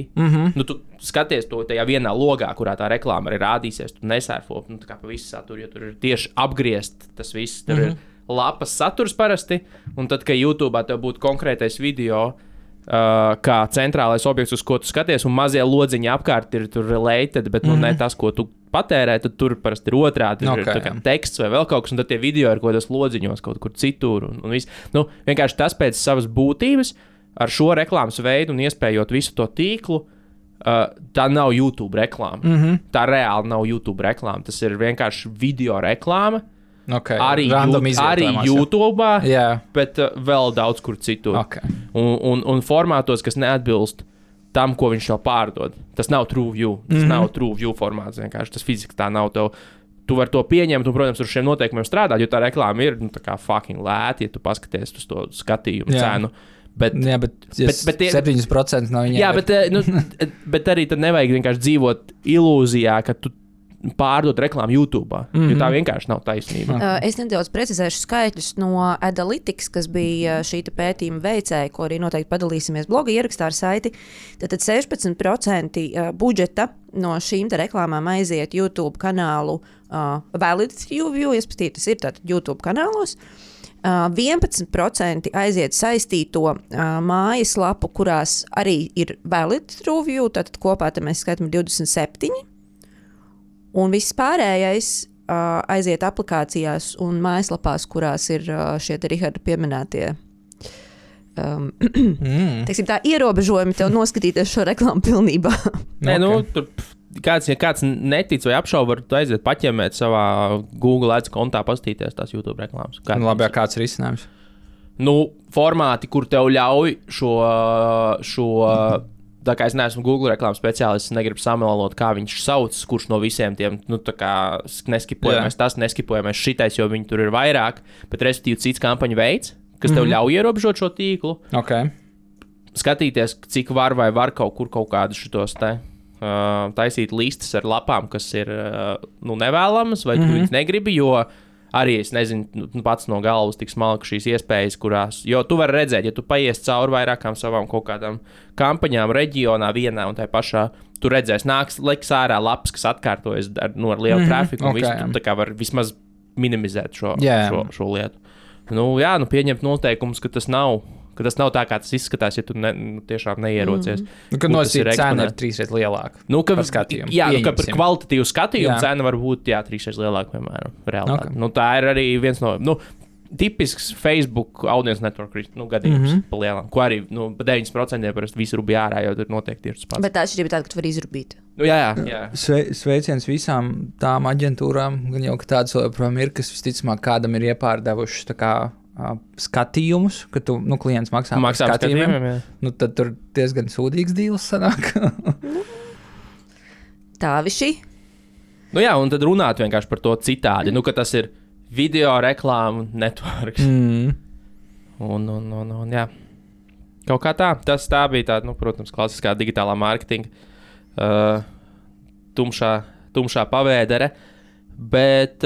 A: Tu skaties to tajā vienā logā, kurā tā reklāma arī rādīsies, tu nesērfo tā kā pa visu saturu, jo tur ir tieši apgriezt tas viss. Tur ir lapas saturs parasti, un tad, kad YouTube tev būtu konkrētais video, kā centrālais objekts, uz ko tu skaties, un mazie lodziņi apkārt ir tur related, bet ne tas, ko tu patērē, tad tur parasti ir otrādi, ir tā kā teksts vai vēl kaut kas, un tad tie video ir kaut kādos lodziņos kaut kur citur, un viss. Vienkārši tas pēc savas būtības, ar šo reklāmas veidu un iespējot visu to tīklu, tā nav YouTube reklāma. Tā reāli nav YouTube reklāma. Tas ir vienkārši video reklāma,
C: Okay.
A: Arī YouTube, bet vēl daudz kur citur.
C: Okay.
A: Un formātos, kas neatbilst tam, ko viņš jau pārdod. Tas nav TrueView. Tas nav TrueView formāts. Vienkārši tas fiziski tā nav. Tu vari to pieņemt un, protams, ar šiem noteikumiem strādāt, jo tā reklāma ir tā kā fucking lēta, ja tu paskaties uz to skatījumu cenu. Bet
C: 7% no viņiem.
A: Jā, bet arī tad nevajag vienkārši dzīvot ilūzijā, ka tu pārdot reklāmu YouTube, jo tā vienkārši nav taisnība.
B: Es nedaudz precizēšu skaitļus no Adalytics, kas bija šī pētījuma veicēja, ko arī noteikti padalīsimies bloga ierakstā ar saiti. Tātad 16% budžeta no šīm reklāmām aiziet YouTube kanālu Valid TrueView, respektīvi tas ir tātad YouTube kanālos. 11% aiziet saistīto mājaslapu, kurās arī ir Valid TrueView, tātad kopā mēs skaitām 27%. Un viss pārējais aiziet aplikācijās un mājaslapās, kurās ir šie Riharda pieminētie teiksim, tā ierobežojumi tev noskatīties šo reklāmu pilnībā.
A: Nē, tur kāds netic vai apšauba, var aiziet paķemēt savā Google Ads kontā, pastīties tās YouTube reklāmas.
C: Labi, kāds ir risinājums?
A: Formāti, kur tev ļauj šo tā kā es neesmu Google reklāmas speciālists, negribu samelot, kā viņš sauc, kurš no visiem tiem, tā kā neskipojamais tas, neskipojamais šitais, jo viņi tur ir vairāk, bet respektīvi cits kampaņu veids, kas tev ļauj ierobežot šo tīklu.
C: Okay.
A: Skatīties, cik var kaut kur kaut kādus šitos taisīt listas ar lapām, kas ir nevēlamas, vai tu viņus negribi, jo arī es nezinu pats no galvas tik smalki šīs iespējas, kurās, jo tu vari redzēt, ja tu paies cauri vairākām savām kaut kādām kampaņām reģionā vienā un tai pašā, tu redzēsi, liks ārā lapas, kas atkārtojas ar lielu trafiku, un visu, tu tā kā var vismaz minimizēt šo lietu. Pieņemt noteikumus, ka tas nav tā, kā tas izskatās, ja tu tiešām neierocies.
C: Kad nosīt cena ir 3 reizes lielāka par skatījumu.
A: Jā, ka par kvalitatīvu skatījumu cena var būt 3 reizes lielāka, piemēram, realitāte. Okay. Tā ir arī viens no tipisks Facebook audience network gadījums pa lielām, ko arī 9% parasti visu rubi ārā, jo tur noteikti ir tas pats.
B: Bet tā atšķirība tāda, ka tu vari izrubīt.
A: Jā.
C: Sveiciens visām tām aģentūrām, gan jau, ka tādas joprojām ir, kas visticamāk kādam ir iepārdevušas tā kā skatījumus, ka tu, klients maksā par skatījumiem, tad tur diezgan sūdīgs dīls sanāk.
B: Tā viši.
A: Un tad runāt vienkārši par to citādi, ka tas ir video reklāmu networks. Un jā. Kaut kā tā. Tā bija tāda, protams, klasiskā digitālā mārketinga tumšā pavēdere, bet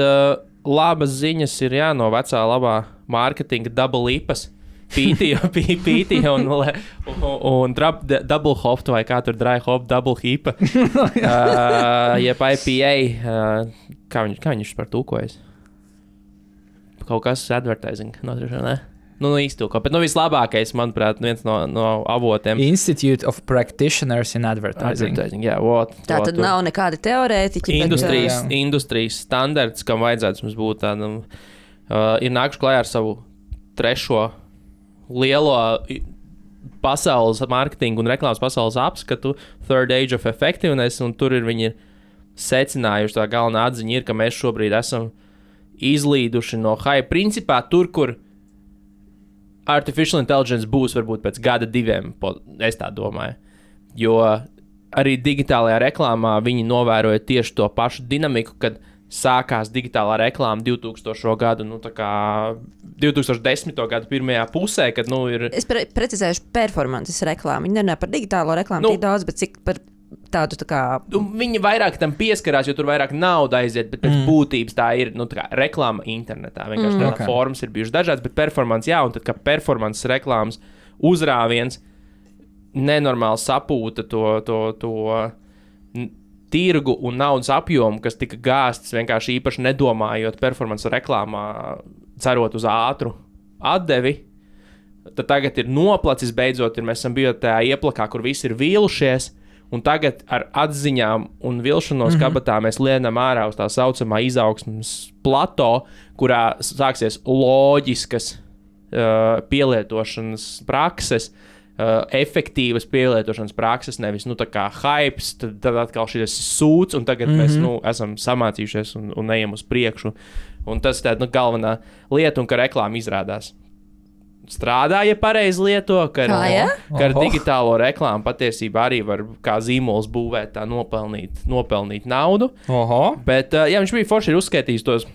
A: labas ziņas ir no vecā labā mārketinga double ipas, pīti un double hop, vai kā tur dry hop, double hipa, jeb IPA, kā viņš par tūkojas? Kaut kas advertising, ne? Īstūko, bet vislabākais, manuprāt, viens no avotiem.
C: Institute of Practitioners in Advertising.
A: Jā,
B: tā tad nav nekāda teorētiķa.
A: Industrijas standarts, kam vajadzētu mums būt tādam, ir nākuši klajā ar savu 3. lielo pasaules mārketingu un reklāmas pasaules apskatu, Third Age of Effectiveness, un tur viņi ir secinājuši, tā galvenā atziņa ir, ka mēs šobrīd esam izlīduši no hype. Principā tur, kur artificial intelligence būs varbūt pēc gada 2, es tā domāju. Jo arī digitālajā reklāmā viņi novēroja tieši to pašu dinamiku, kad sākās digitālā reklāma 2000. gadu, 2010. gadu pirmajā pusē, kad ir...
B: Es precizēšu performances reklāmu. Viņi nerunā par digitālo reklāmu tik daudz, bet cik par tādu tā kā...
A: Viņi vairāk tam pieskarās, jo tur vairāk nauda aiziet, bet pēc būtības tā ir tā kā reklāma internetā. Vienkārši formas ir bijušas dažādas, bet performance, un tad, kā performances reklāmas uzrāviens nenormāli sapūta to tirgu un naudas apjomu, kas tika gāsts vienkārši īpaši nedomājot performance reklāmā, cerot uz ātru atdevi. Tad tagad ir noplacis beidzot, mēs esam bijuši tajā ieplakā, kur visi ir vīlušies, un tagad ar atziņām un vilšanos kabatā mēs lienam ārā uz tā saucamā izaugsmes plato, kurā sāksies loģiskas pielietošanas prakses, efektīvas pielietošanas prakses, nevis tā kā hypes, tad atkal šis sūds, un tagad mēs esam samācījušies un ejam uz priekšu. Un tas ir galvenā lieta, un ka reklāma izrādās strādā, ja pareizi lieto, ka ar digitālo reklāmu patiesībā arī var kā zīmols būvēt, tā nopelnīt naudu. Bet viņš bija forši uzskaitījis tos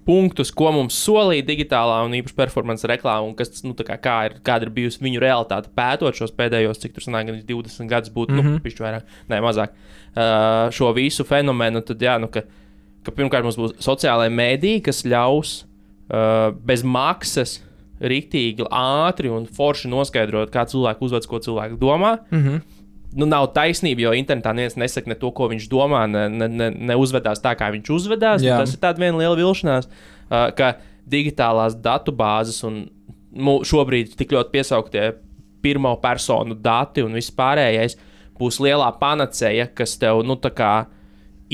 A: punktus, ko mums solīja digitālā un īpaši performance reklāma, un kas, kāda ir bijusi viņu realitāte pētot šos pēdējos, cik tur sanāk, 20 gadus būtu, pišķi vairāk, ne, mazāk, šo visu fenomenu, tad ka pirmkārt mums būs sociālai mēdī, kas ļaus bez maksas riktīgi, ātri un forši noskaidrot, kā cilvēku uzvedas, ko cilvēku domā. Nav taisnība, jo internetā neviens nesaka ne to, ko viņš domā, ne uzvedās tā, kā viņš uzvedās. Tas ir tāda viena liela vilšanās, ka digitālās datubāzes un šobrīd tik ļoti piesauktie pirmo personu dati un viss pārējais būs lielā panacēja, kas tev,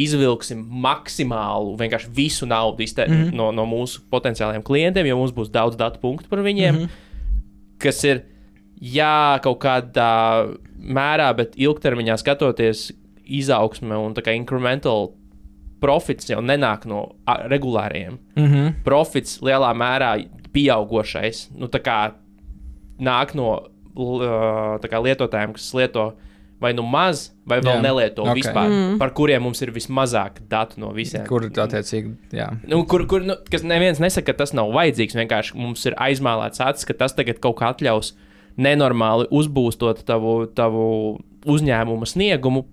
A: izvilksim maksimālu, vienkārši visu naudu no mūsu potenciālajiem klientiem, jo mums būs daudz datu punktu par viņiem, kas ir, kaut kādā mērā, bet ilgtermiņā skatoties izaugsme un tā kā incremental profits jau nenāk no regulāriem. Profits lielā mērā pieaugošais, tā kā nāk no lietotājiem, kas lieto vai maz, vai vēl nelieto vispār, par kuriem mums ir vismazāk datu no visiem.
C: Kur attiecīgi,
A: kas neviens nesaka, ka tas nav vajadzīgs, vienkārši mums ir aizmālēts acis, ka tas tagad kaut kā atļaus nenormāli uzbūstot tavu uzņēmuma sniegumu,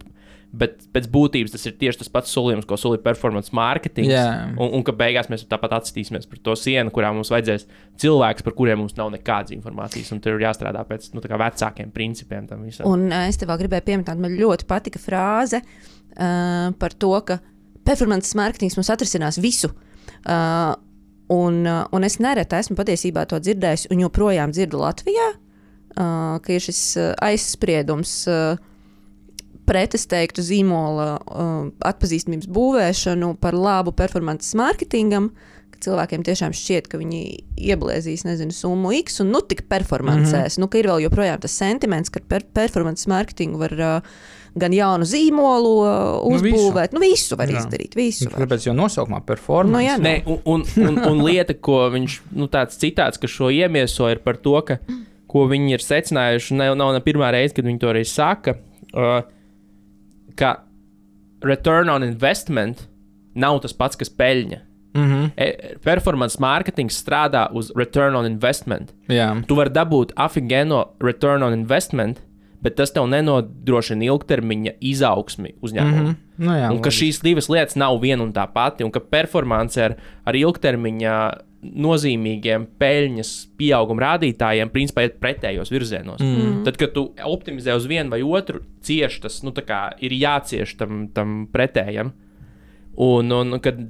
A: bet pēc būtības tas ir tieši tas pats solījums, ko solīja performance marketing, un ka beigās mēs tāpat atstīsimies par to sienu, kurā mums vajadzēs cilvēks, par kuriem mums nav nekādas informācijas, un tur ir jāstrādā pēc vecākiem principiem tam visam.
B: Un es tev gribēju pieminēt, man ļoti patika frāze par to, ka performance marketings mums atrisinās visu. Un es nereti esmu patiesībā to dzirdējis, un joprojām dzirdu Latvijā, ka ir šis aizspriedums pret, es teiktu, zīmola atpazīstamības būvēšanu par labu performance marketingam, ka cilvēkiem tiešām šķiet, ka viņi ieblēzīs, summu X un tik performancēs. Ka ir vēl joprojām tas sentiments, ka performance marketingu var gan jaunu zīmolu uzbūvēt, visu var izdarīt, visu var.
C: Kāpēc jau nosaukumā performance?
A: Nē, un lieta, ko viņš, tāds citāts, ka šo iemieso ir par to, ka ko viņi ir secinājuši, nav ne pirmā reize, kad viņi to arī saka, ka return on investment nav tas pats, kas peļņa. Performance marketing strādā uz return on investment. Tu vari dabūt afigēno return on investment, bet tas tev nenodrošina ilgtermiņa izaugsmi uzņēmumu. Un ka šīs divas lietas nav viena un tā pati, un ka performance ar ilgtermiņa nozīmīgiem peļņas pieauguma rādītājiem principā iet pretējos virzienos. Tad, kad tu optimizē uz vienu vai otru, cieši tas, ir jācieš tam pretējam. Un kad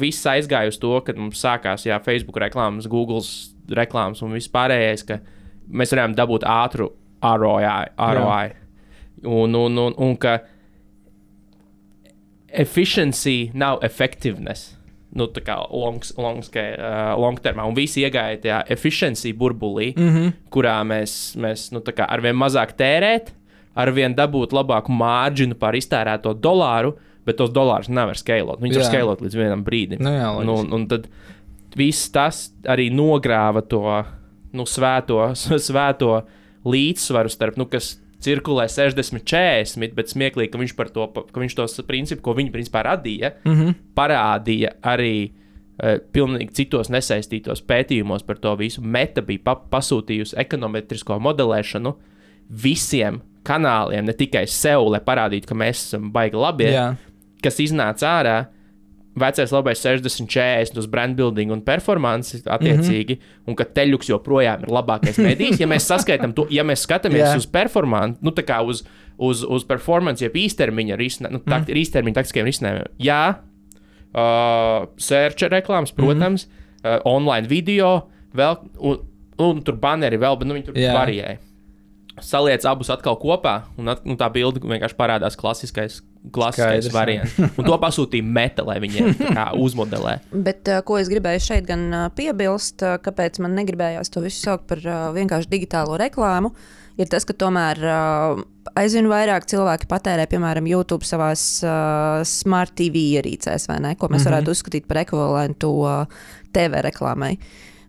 A: viss aizgāja uz to, kad mums sākās Facebook reklāmas, Google reklāmas un viss pārējais, ka mēs varējām dabūt ātru ROI. Un ka efficiency nav effectiveness. Tā kā long termā. Un visi iegāja tajā efficiency burbulī, kurā mēs arvien mazāk tērēt, arvien dabūt labāku mārģinu par iztērēto dolāru, bet tos dolārus nevar skalot. Viņi var skalot līdz vienam brīdim. Un tad viss tas arī nogrāva to svēto līdzsvaru starp, kas cirkulē 60-40, bet smieklīgi, ka viņš tos principus, ko viņi principā radīja, parādīja arī pilnīgi citos nesaistītos pētījumos par to visu. Meta bija pasūtījusi ekonometrisko modelēšanu visiem kanāliem, ne tikai sev, lai parādītu, ka mēs esam baigi labi, kas iznāca ārā. Vecais labais 60-40 uz brand building un performance attiecīgi, un ka teļuks joprojām ir labākais medijs. Ja mēs saskaitām to, ja mēs skatāmies uz performance, tā kā uz performance, jeb īstermiņa īstermiņa taktiskiem risinājumiem. Search reklāmas, protams, online video, vēl, un tur banneri vēl, bet viņi tur variēja. saliec abus atkal kopā, un tā bilde vienkārši parādās klasiskais variants. Un to pasūtīja Meta, lai viņiem uzmodelē.
B: Bet ko es gribēju šeit gan piebilst, kāpēc man negribējās to visu saukt par vienkārši digitālo reklāmu, ir tas, ka tomēr aizvien vairāk cilvēki patērē, piemēram, YouTube savās Smart TV ierīcēs, vai ne? Ko mēs varētu uzskatīt par ekvivalentu TV reklāmai.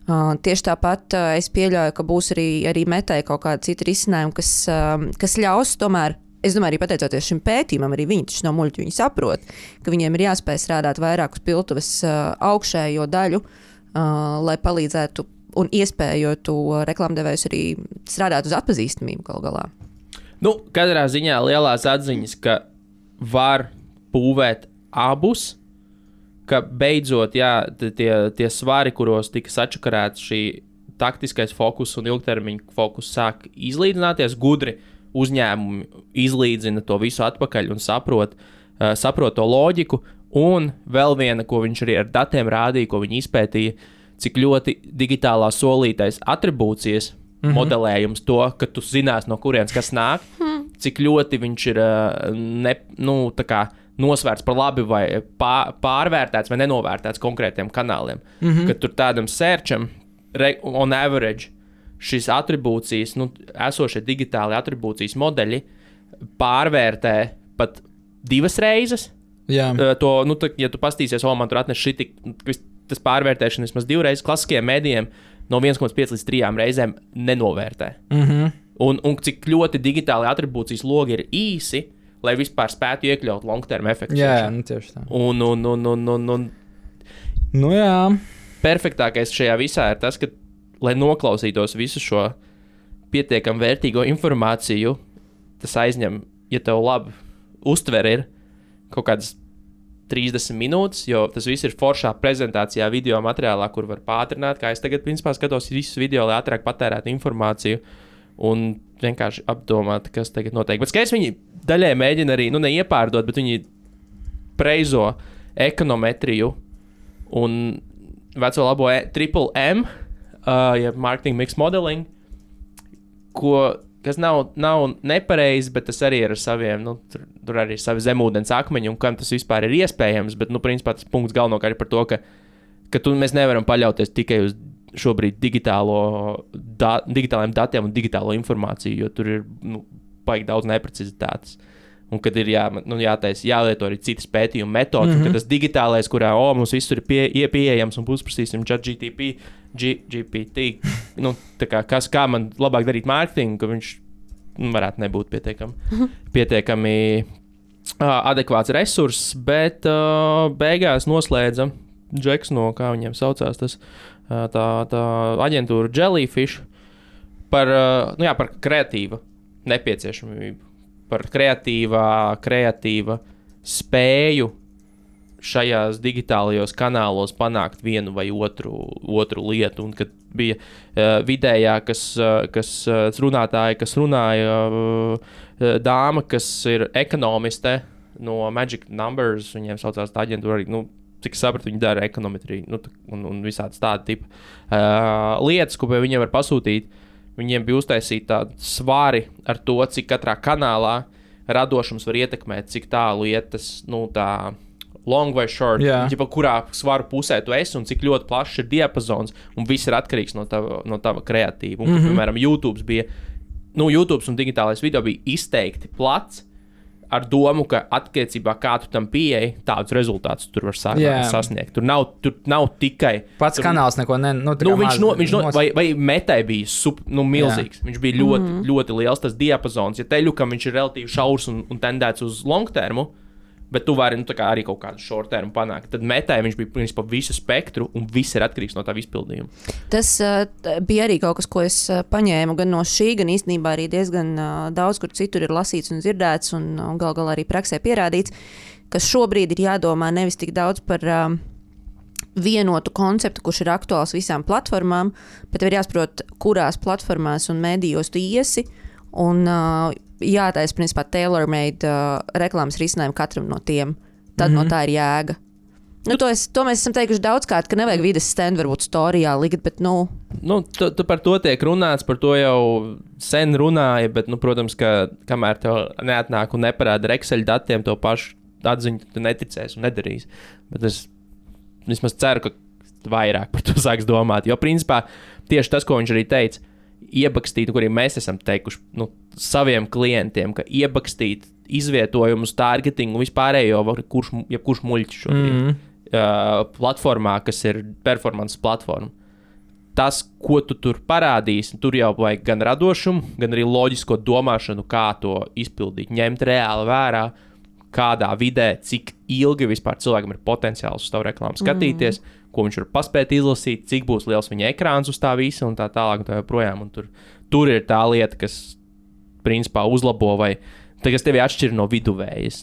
B: Tieši tāpat es pieļauju, ka būs arī Metai kaut kāda cita risinājuma, kas ļaus tomēr, es domāju, arī pateicoties šim pētījumam, arī viņi taču no muļķu, viņi saprot, ka viņiem ir jāspēj strādāt vairāk uz piltuves augšējo daļu, lai palīdzētu un iespējotu reklāmdevējus arī strādāt uz atpazīstamību galu galā.
A: Nu, katrā ziņā lielās atziņas, ka var būvēt abus, ka beidzot, tie svari, kuros tika sačakarēts šī taktiskais fokus un ilgtermiņa fokus sāk izlīdzināties, gudri uzņēmumi izlīdzina to visu atpakaļ un saprot to loģiku. Un vēl viena, ko viņš arī ar datiem rādīja, ko viņi izpētīja, cik ļoti digitālā solītais atribūcijas modelējums to, ka tu zinās, no kurienes kas nāk, cik ļoti viņš ir nosvērts par labi vai pārvērtēts vai nenovērtēts konkrētiem kanāliem. Kad tur tādam searcham on average šīs atribūcijas, esošie digitāli atribūcijas modeļi pārvērtē pat 2 reizes.
C: Jā.
A: Ja tu pastīsies, man tur atnes tas pārvērtēšana vismaz 2 reizes, klasiskajiem mēdījiem no 1,5 līdz 3 reizēm nenovērtē. Un cik ļoti digitāli atribūcijas logi ir īsi, lai vispār spētu iekļaut long-term efektu.
C: Jā, tieši tā. Jā.
A: Perfektākais šajā visā ir tas, ka, lai noklausītos visu šo pietiekam vērtīgo informāciju, tas aizņem, ja tev labi uztver ir kaut kādas 30 minūtes, jo tas viss ir foršā prezentācijā, video materiālā, kur var pātrināt, kā es tagad, principā, skatos visus video, lai ātrāk patērētu informāciju un vienkārši apdomāt, kas tagad notiek. Bet skaidrs, viņi daļai mēģina arī, neiepārdot, bet viņi preizo ekonometriju un veco labo triple M, marketing mix modeling, kas nav nepareizi, bet tas arī ir ar saviem, tur arī ir savi zemūdens akmeņi, un kam tas vispār ir iespējams, bet, principā tas punkts galvenokārt ir par to, ka mēs nevaram paļauties tikai uz šobrīd digitāliem datiem un digitālo informāciju, jo tur ir, baigi daudz neprecizitātes. Un kad ir jālieto arī citas pētījuma metodas, un kad tas digitālais, kurā mums viss ir pieejams un uzprasīsim GPT, kā man labāk darīt mārketingu, ka viņš varētu nebūt pietiekami adekvāts resurss, bet beigās noslēdza Džeks no, kā viņiem saucās, tas tā aģentūra Jellyfish par kreatīvu nepieciešamību. Par kreatīva spēju šajās digitālajos kanālos panākt vienu vai otru lietu. Un kad bija vidējā, kas runātāja, kas runāja dāma, kas ir ekonomiste no Magic Numbers, viņiem saucās tā aģentūra arī, cik sapratu, viņi dara ekonometriju, un visādas tāda tipa lietas, ko viņiem var pasūtīt. Viņiem bija uztaisīti tādi svari ar to, cik katrā kanālā radošums var ietekmēt, cik tālu iet tas, tā long vai short, kurā svaru pusē tu esi un cik ļoti plašs ir diapazons, un viss ir atkarīgs no tava kreatīva. Un, piemēram, YouTube un digitālais video bija izteikti plats, ar domu, ka attiecībā kā tu tam pieeji, tādus rezultātus tur var sasniegt. Tur nav tikai...
C: Pats kanāls neko
A: vai Metai bija milzīgs. Viņš bija ļoti, ļoti liels tas diapazons. Ja teļukam viņš ir relatīvi šaurs un tendēts uz long termu, bet tu vari arī kaut kādu short termu panākt. Tad Metai viņš bija principā visu spektru un viss ir atkarīgs no tā izpildījuma.
B: Tas bija arī kaut kas, ko es paņēmu gan no šī, gan īstenībā arī diezgan daudz, kur citur ir lasīts un dzirdēts un gal galā arī praksē pierādīts, ka šobrīd ir jādomā nevis tik daudz par vienotu konceptu, kurš ir aktuāls visām platformām, bet ir jāsaprot, kurās platformās un mēdījos tu iesi un jātaisa, principā, tailor-made reklāmas risinājumu katram no tiem. Tad no tā ir jēga. To mēs esam teikuši daudzkārt, ka nevajag vides stendu varbūt storijā likt, bet,
A: Tu par to tiek runāts, par to jau sen runāja, bet, protams, ka kamēr tev neatnāk un neparāda ar Excel datiem, to pašu atziņu tu neticēsi un nedarīsi. Bet es vismaz ceru, ka vairāk par to sāks domāt, jo, principā, tieši tas, ko viņš arī teica, iebakstīt, ko arī mēs esam teikuši saviem klientiem, ka iebakstīt izvietojumus, targetingu, vispārējo, jebkurš muļķis šobrīd. Platformā, kas ir performance platforma. Tas, ko tu tur parādīsi, tur jau vajag gan radošumu, gan arī loģisko domāšanu, kā to izpildīt, ņemt reāli vērā, kādā vidē, cik ilgi vispār cilvēkam ir potenciāls uz tavu reklāmu skatīties, ko viņš var paspēt izlasīt, cik būs liels viņa ekrāns uz tā visa un tā tālāk un tā joprojām. Un tur ir tā lieta, kas principā uzlabo vai kas tevi atšķir no viduvējas.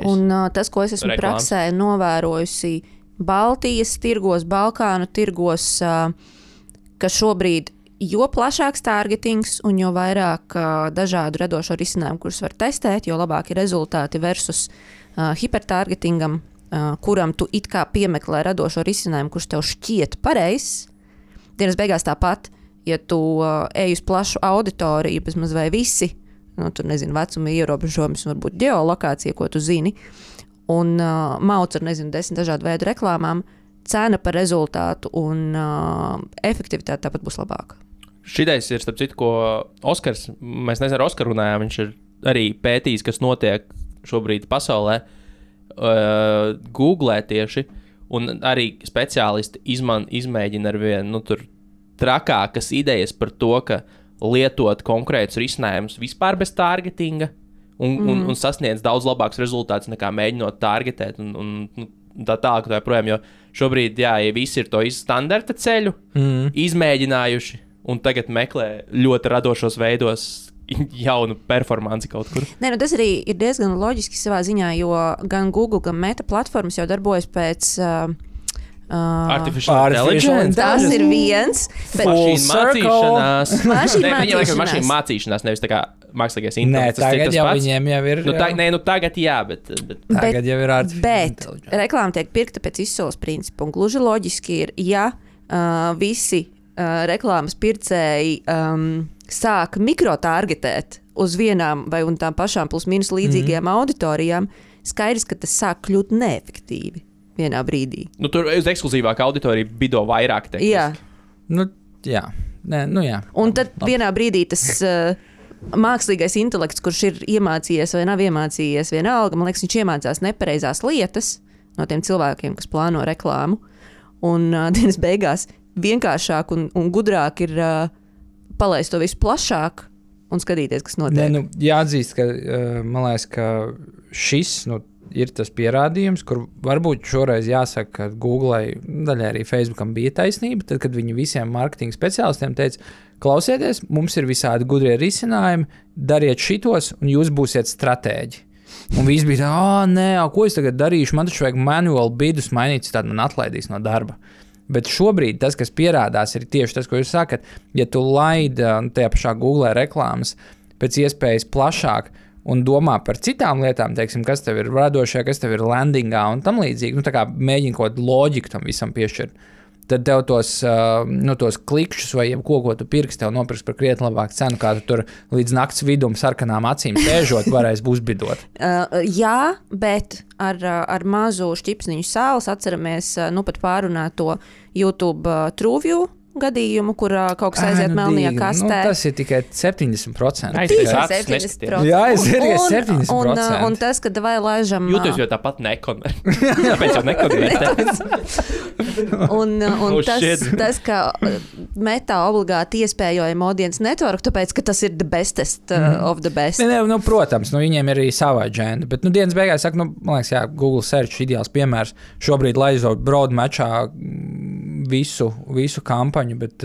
B: Un tas, ko es esmu praksē novērojusi Baltijas tirgos, Balkānu tirgos, ka šobrīd jo plašāks targetings un jo vairāk dažādu radošo risinājumu, kurus var testēt, jo labāki rezultāti versus hipertargetingam, kuram tu it kā piemeklē radošo risinājumu, kurš tev šķiet pareizs. Dienas beigās tāpat, ja tu ej uz plašu auditoriju, bezmaz vai visi, tur nezinu, vecuma ierobežojums, varbūt ģeolokācija, ko tu zini, un mauc ar, 10 dažādu veidu reklāmām, cena par rezultātu un efektivitāte tāpat būs labāka.
A: Šitais ir, starp citu, ko Oskars, mēs nezinu, ar Oskaru runājām, viņš ir arī pētījis, kas notiek šobrīd pasaulē, Googlē tieši, un arī speciālisti izmēģina ar vienu, tur trakākas idejas par to, ka lietot konkrētus risinājumus vispār bez targetinga un sasniedz daudz labākus rezultātus nekā mēģinot targetēt un tā tālāk tā projām, jo šobrīd, ja visi ir to standarta ceļu izmēģinājuši un tagad meklē ļoti radošos veidos jaunu performanci kaut kur.
B: Tas arī ir diezgan loģiski savā ziņā, jo gan Google, gan Meta platformas jau darbojas pēc
A: Artificial intelligence.
B: Tas ir viens.
A: Mašīnu mācīšanās, nevis tā kā mākslīgais intelekts.
C: Tagad jau viņiem jau ir.
A: Tagad jā, bet
C: tagad jau ir artificial intelligence.
B: Bet reklāma tiek pirkta pēc izsoles principa, un gluži loģiski ir, ja visi reklāmas pircēji sāk mikrotargetēt uz vienām vai un tām pašām plus mīnus līdzīgajām auditorijām, skaidrs, ka tas sāk kļūt neefektīvi vienā brīdī.
A: Tur uz ekskluzīvāku auditoriju bido vairāk tehniski.
C: Jā. Jā.
B: Un tad vienā brīdī tas mākslīgais intelekts, kurš ir iemācījies vai nav iemācījies vienalga, man liekas, viņš iemācās nepareizās lietas no tiem cilvēkiem, kas plāno reklāmu. Un dienas beigās vienkāršāk un gudrāk ir palaist to visu plašāk un skatīties, kas notiek.
C: Jāatzīst, ka man liekas, ka šis ir tas pierādījums, kur varbūt šoreiz jāsaka, ka Googlei, daļai arī Facebookam bija taisnība, tad, kad viņi visiem marketinga speciālistiem teica, klausieties, mums ir visādi gudrie risinājumi, dariet šitos un jūs būsiet stratēģi. Un viss bija tā, ko es tagad darīšu, man taču vajag manuāli bidus mainīt, tad man atlaidīs no darba. Bet šobrīd tas, kas pierādās, ir tieši tas, ko jūs sakat, ja tu laidi tajā pašā Google reklāmas pēc iespējas plašāk un domā par citām lietām, teiksim, kas tev ir radošajā, kas tev ir landingā un tam līdzīgi, tā kā mēģini kaut kādu loģiku tam visam piešķirt, tad tev tos klikšķus vai jebko, ko tu pirksi, tev nopirks par krietni labāku cenu, kā tu tur līdz nakts vidum sarkanām acīm sēžot, varēs uzbidot.
B: Jā, bet ar mazu šķipsniņu sāles atceramies pat pārunāt to YouTube TrueView gadījumu, kur kaut kas aiziet melnajā kastē.
C: Tas ir tikai 70%.
A: Jā,
C: es ir 70%.
B: Un tas, kad vai laižam...
A: Jūtos jau tāpat nekonvertē. Tāpēc jau nekonvertē.
B: Un tas, ka Meta obligāti iespējojama audience network, tāpēc, ka tas ir the bestest of the best.
C: Protams, viņiem ir arī sava agenda, bet dienas beigās saka, man liekas, Google Search ideāls piemērs. Šobrīd laizot broad matchā visu kampaņu, bet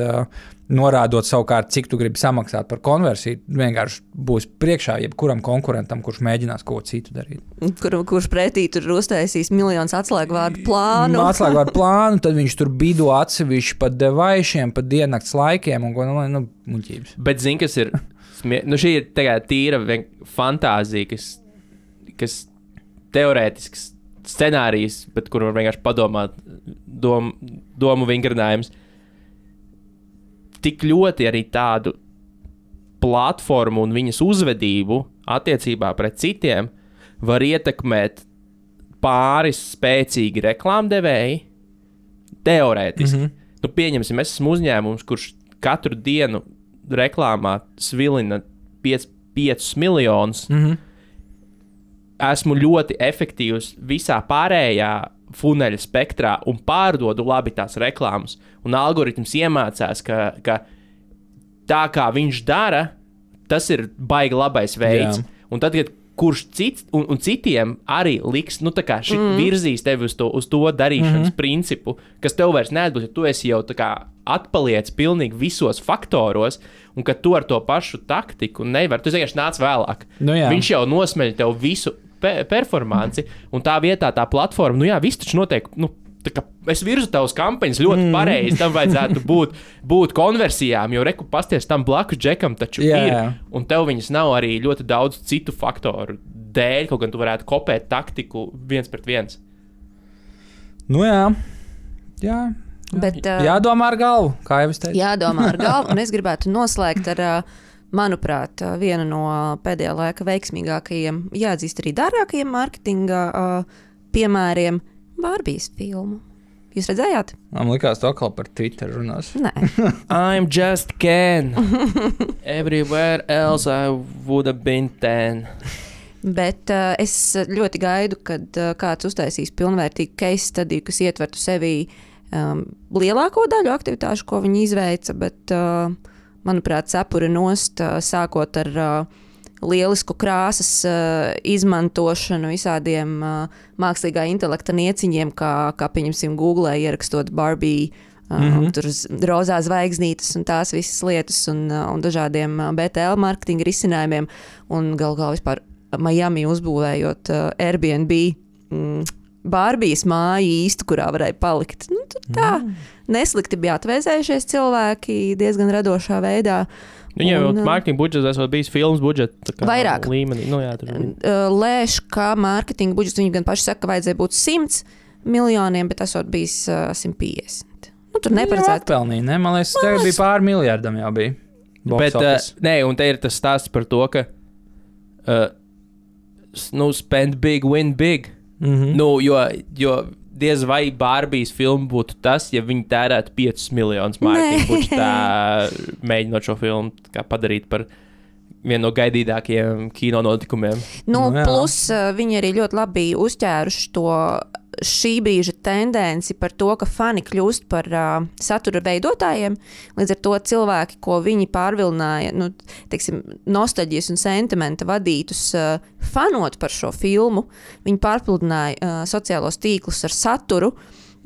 C: norādot savukārt, cik tu gribi samaksāt par konversiju, vienkārši būs priekšā jebkuram konkurentam, kurš mēģinās ko citu darīt.
B: Kurš pretī tur uztaisīs miljonus atslēgvārdu plānu.
C: Tad viņš tur bido atsevišķi pa devaišiem, pa diennakts laikiem un muļķības.
A: Bet zini, kas ir, šī ir tīra fantāzija, kas teorētisks scenārijs, bet kur var vienkārši padomāt, domu vingrinājums. Tik ļoti arī tādu platformu un viņas uzvedību attiecībā pret citiem var ietekmēt pāris spēcīgi reklāmdevēji, teorētiski. Nu, pieņemsim, es esmu uzņēmums, kurš katru dienu reklāmā svilina 5 miljonus. Esmu ļoti efektīvs visā pārējā funeļa spektrā un pārdodu labi tās reklāmas. Un algoritms iemācās, ka tā kā viņš dara, tas ir baigi labais veids. Jā. Un tad, kad kurš cits un citiem arī liks, nu tā kā virzīs tevi uz to darīšanas principu, kas tev vairs neatbūt, ja tu esi jau tā kā atpaliec pilnīgi visos faktoros, un ka tu ar to pašu taktiku nevar, tu vienkārši nāc vēlāk.
C: Nu,
A: viņš jau nosmeļ tev visu performanci, un tā vietā tā platforma, nu jā, viss taču notiek, nu, tā kā es virzu tavas kampaņas ļoti pareizi, tam vajadzētu būt konversijām, jo reku pasties tam blakus džekam taču ir, un tev viņas nav arī ļoti daudz citu faktoru dēļ, kaut gan tu varētu kopēt taktiku 1-1.
C: Nu jā. Bet, jādomā ar galvu, kā jau es teicu.
B: Jādomā ar galvu, un es gribētu noslēgt ar, manuprāt, vienu no pēdējā laika veiksmīgākajiem, jāatzīst arī dārgākajiem mārketinga piemēriem, Barbijas filmu. Jūs redzējāt?
C: Man likās, to atkal par Twitter runās.
B: Nē.
A: I'm just Ken. Everywhere else I would have been 10.
B: Bet es ļoti gaidu, kad kāds uztaisīs pilnvērtīgu case study, kas ietvertu sevī lielāko daļu aktivitāšu, ko viņi izveica, bet, manuprāt, cepura nost, sākot ar lielisku krāsas izmantošanu visādiem mākslīgā intelekta nieciņiem, kā pieņemsim Google, ierakstot Barbie, tur rozā zvaigznītes un tās visas lietas un dažādiem BTL marketinga risinājumiem un galvā vispār Miami uzbūvējot Airbnb Barbijas māju īstu, kurā varēja palikt. Nu, tā neslikti bija atvēzējušies cilvēki diezgan radošā veidā.
A: Viņiem mārketinga budžets esot bijis filmas budžets
B: vairāk
A: līmenī. Nu, jā,
B: lēš, ka mārketinga budžets viņi gan paši saka, ka vajadzēja būt 100 miljoniem, bet esot bijis 150. Nu, tur neparedzēt.
C: Atpelnīja, ne? Man liekas, tagad bija pār miljardam jau bija.
A: Bet, nē, un te ir tas stāsts par to, ka spend big, win big. Nu, jo diez vai Barbijas filma būtu tas, ja viņi tērētu 5 miljonus mārketinga budžetā, mēģinot šo filmu padarīt par vienu no gaidītākajiem kino notikumiem.
B: Nu, plus viņi arī ļoti labi uzķēruši to šī brīža tendenci par to, ka fani kļūst par satura veidotājiem. Līdz ar to cilvēki, ko viņi pārvilināja, nostalģijas un sentimenta vadītus fanot par šo filmu, viņi pārpludināja sociālos tīklus ar saturu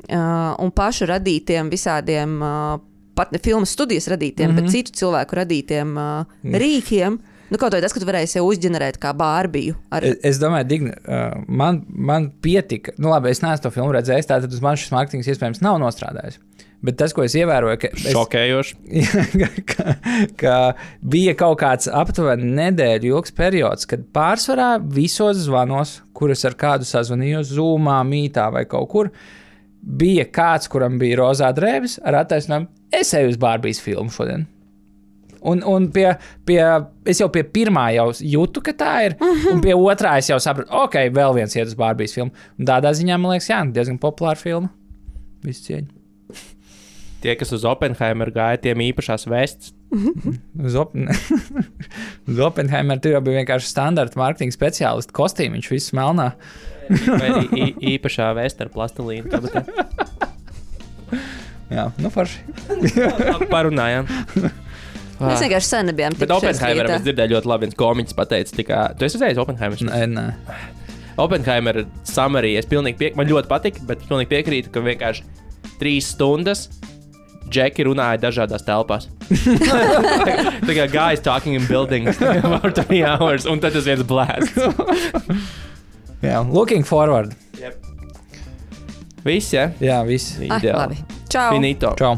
B: un pašu radītiem visādiem, pat ne filmas studijas radītiem, bet citu cilvēku radītiem rīkiem. Nu, kaut vai tas, ka tu varēji sev uzģenerēt kā Bārbiju.
C: Es domāju, Digna, man pietika, nu labi, es neesmu to filmu redzējis, tātad uz man šis mārketings iespējams nav nostrādājis. Bet tas, ko es ievēroju, ka
A: šokējoši.
C: ka bija kaut kāds aptuveni nedēļu ilgs periods, kad pārsvarā visos zvanos, kurus ar kādu sazvanījos, Zoomā, Mītā vai kaut kur, bija kāds, kuram bija rozā drēbes ar attaisnojumu, es eju uz Bārbijas filmu šodien. Un es jau pie pirmā jau jūtu, ka tā ir, un pie otrā es jau sapratu, ok, vēl viens iet uz Bārbijas filmu. Un tādā ziņā, man liekas, diezgan populāra filma. Visu cieņu.
A: Tie, kas uz Oppenheimer gāja, tiem īpašās vests.
C: Uz Oppenheimer tur jau bija vienkārši standarta mārketinga speciālisti kostīmiņš, viss melnā.
A: Vai īpašā vesta ar plastilīnu kabatē.
C: Jā, nu forši.
A: Parunājām.
B: Mēs vienkārši sen nebijām
A: tikušies. Bet Oppenheimeram es dzirdēju ļoti labi, viens komiķis pateica, tu esi redzējis Oppenheimer?
C: Nē.
A: Oppenheimer summary, man ļoti patika, bet pilnīgi piekrītu, ka vienkārši 3 stundas Džeki runāja dažādās telpās. Tā kā guys talking in buildings for 3 hours, un tad tas viens blēsts.
C: Jā, looking forward.
A: Yep. Viss, ja?
C: Jā, viss.
B: Labi. Čau.
A: Finito.
C: Čau.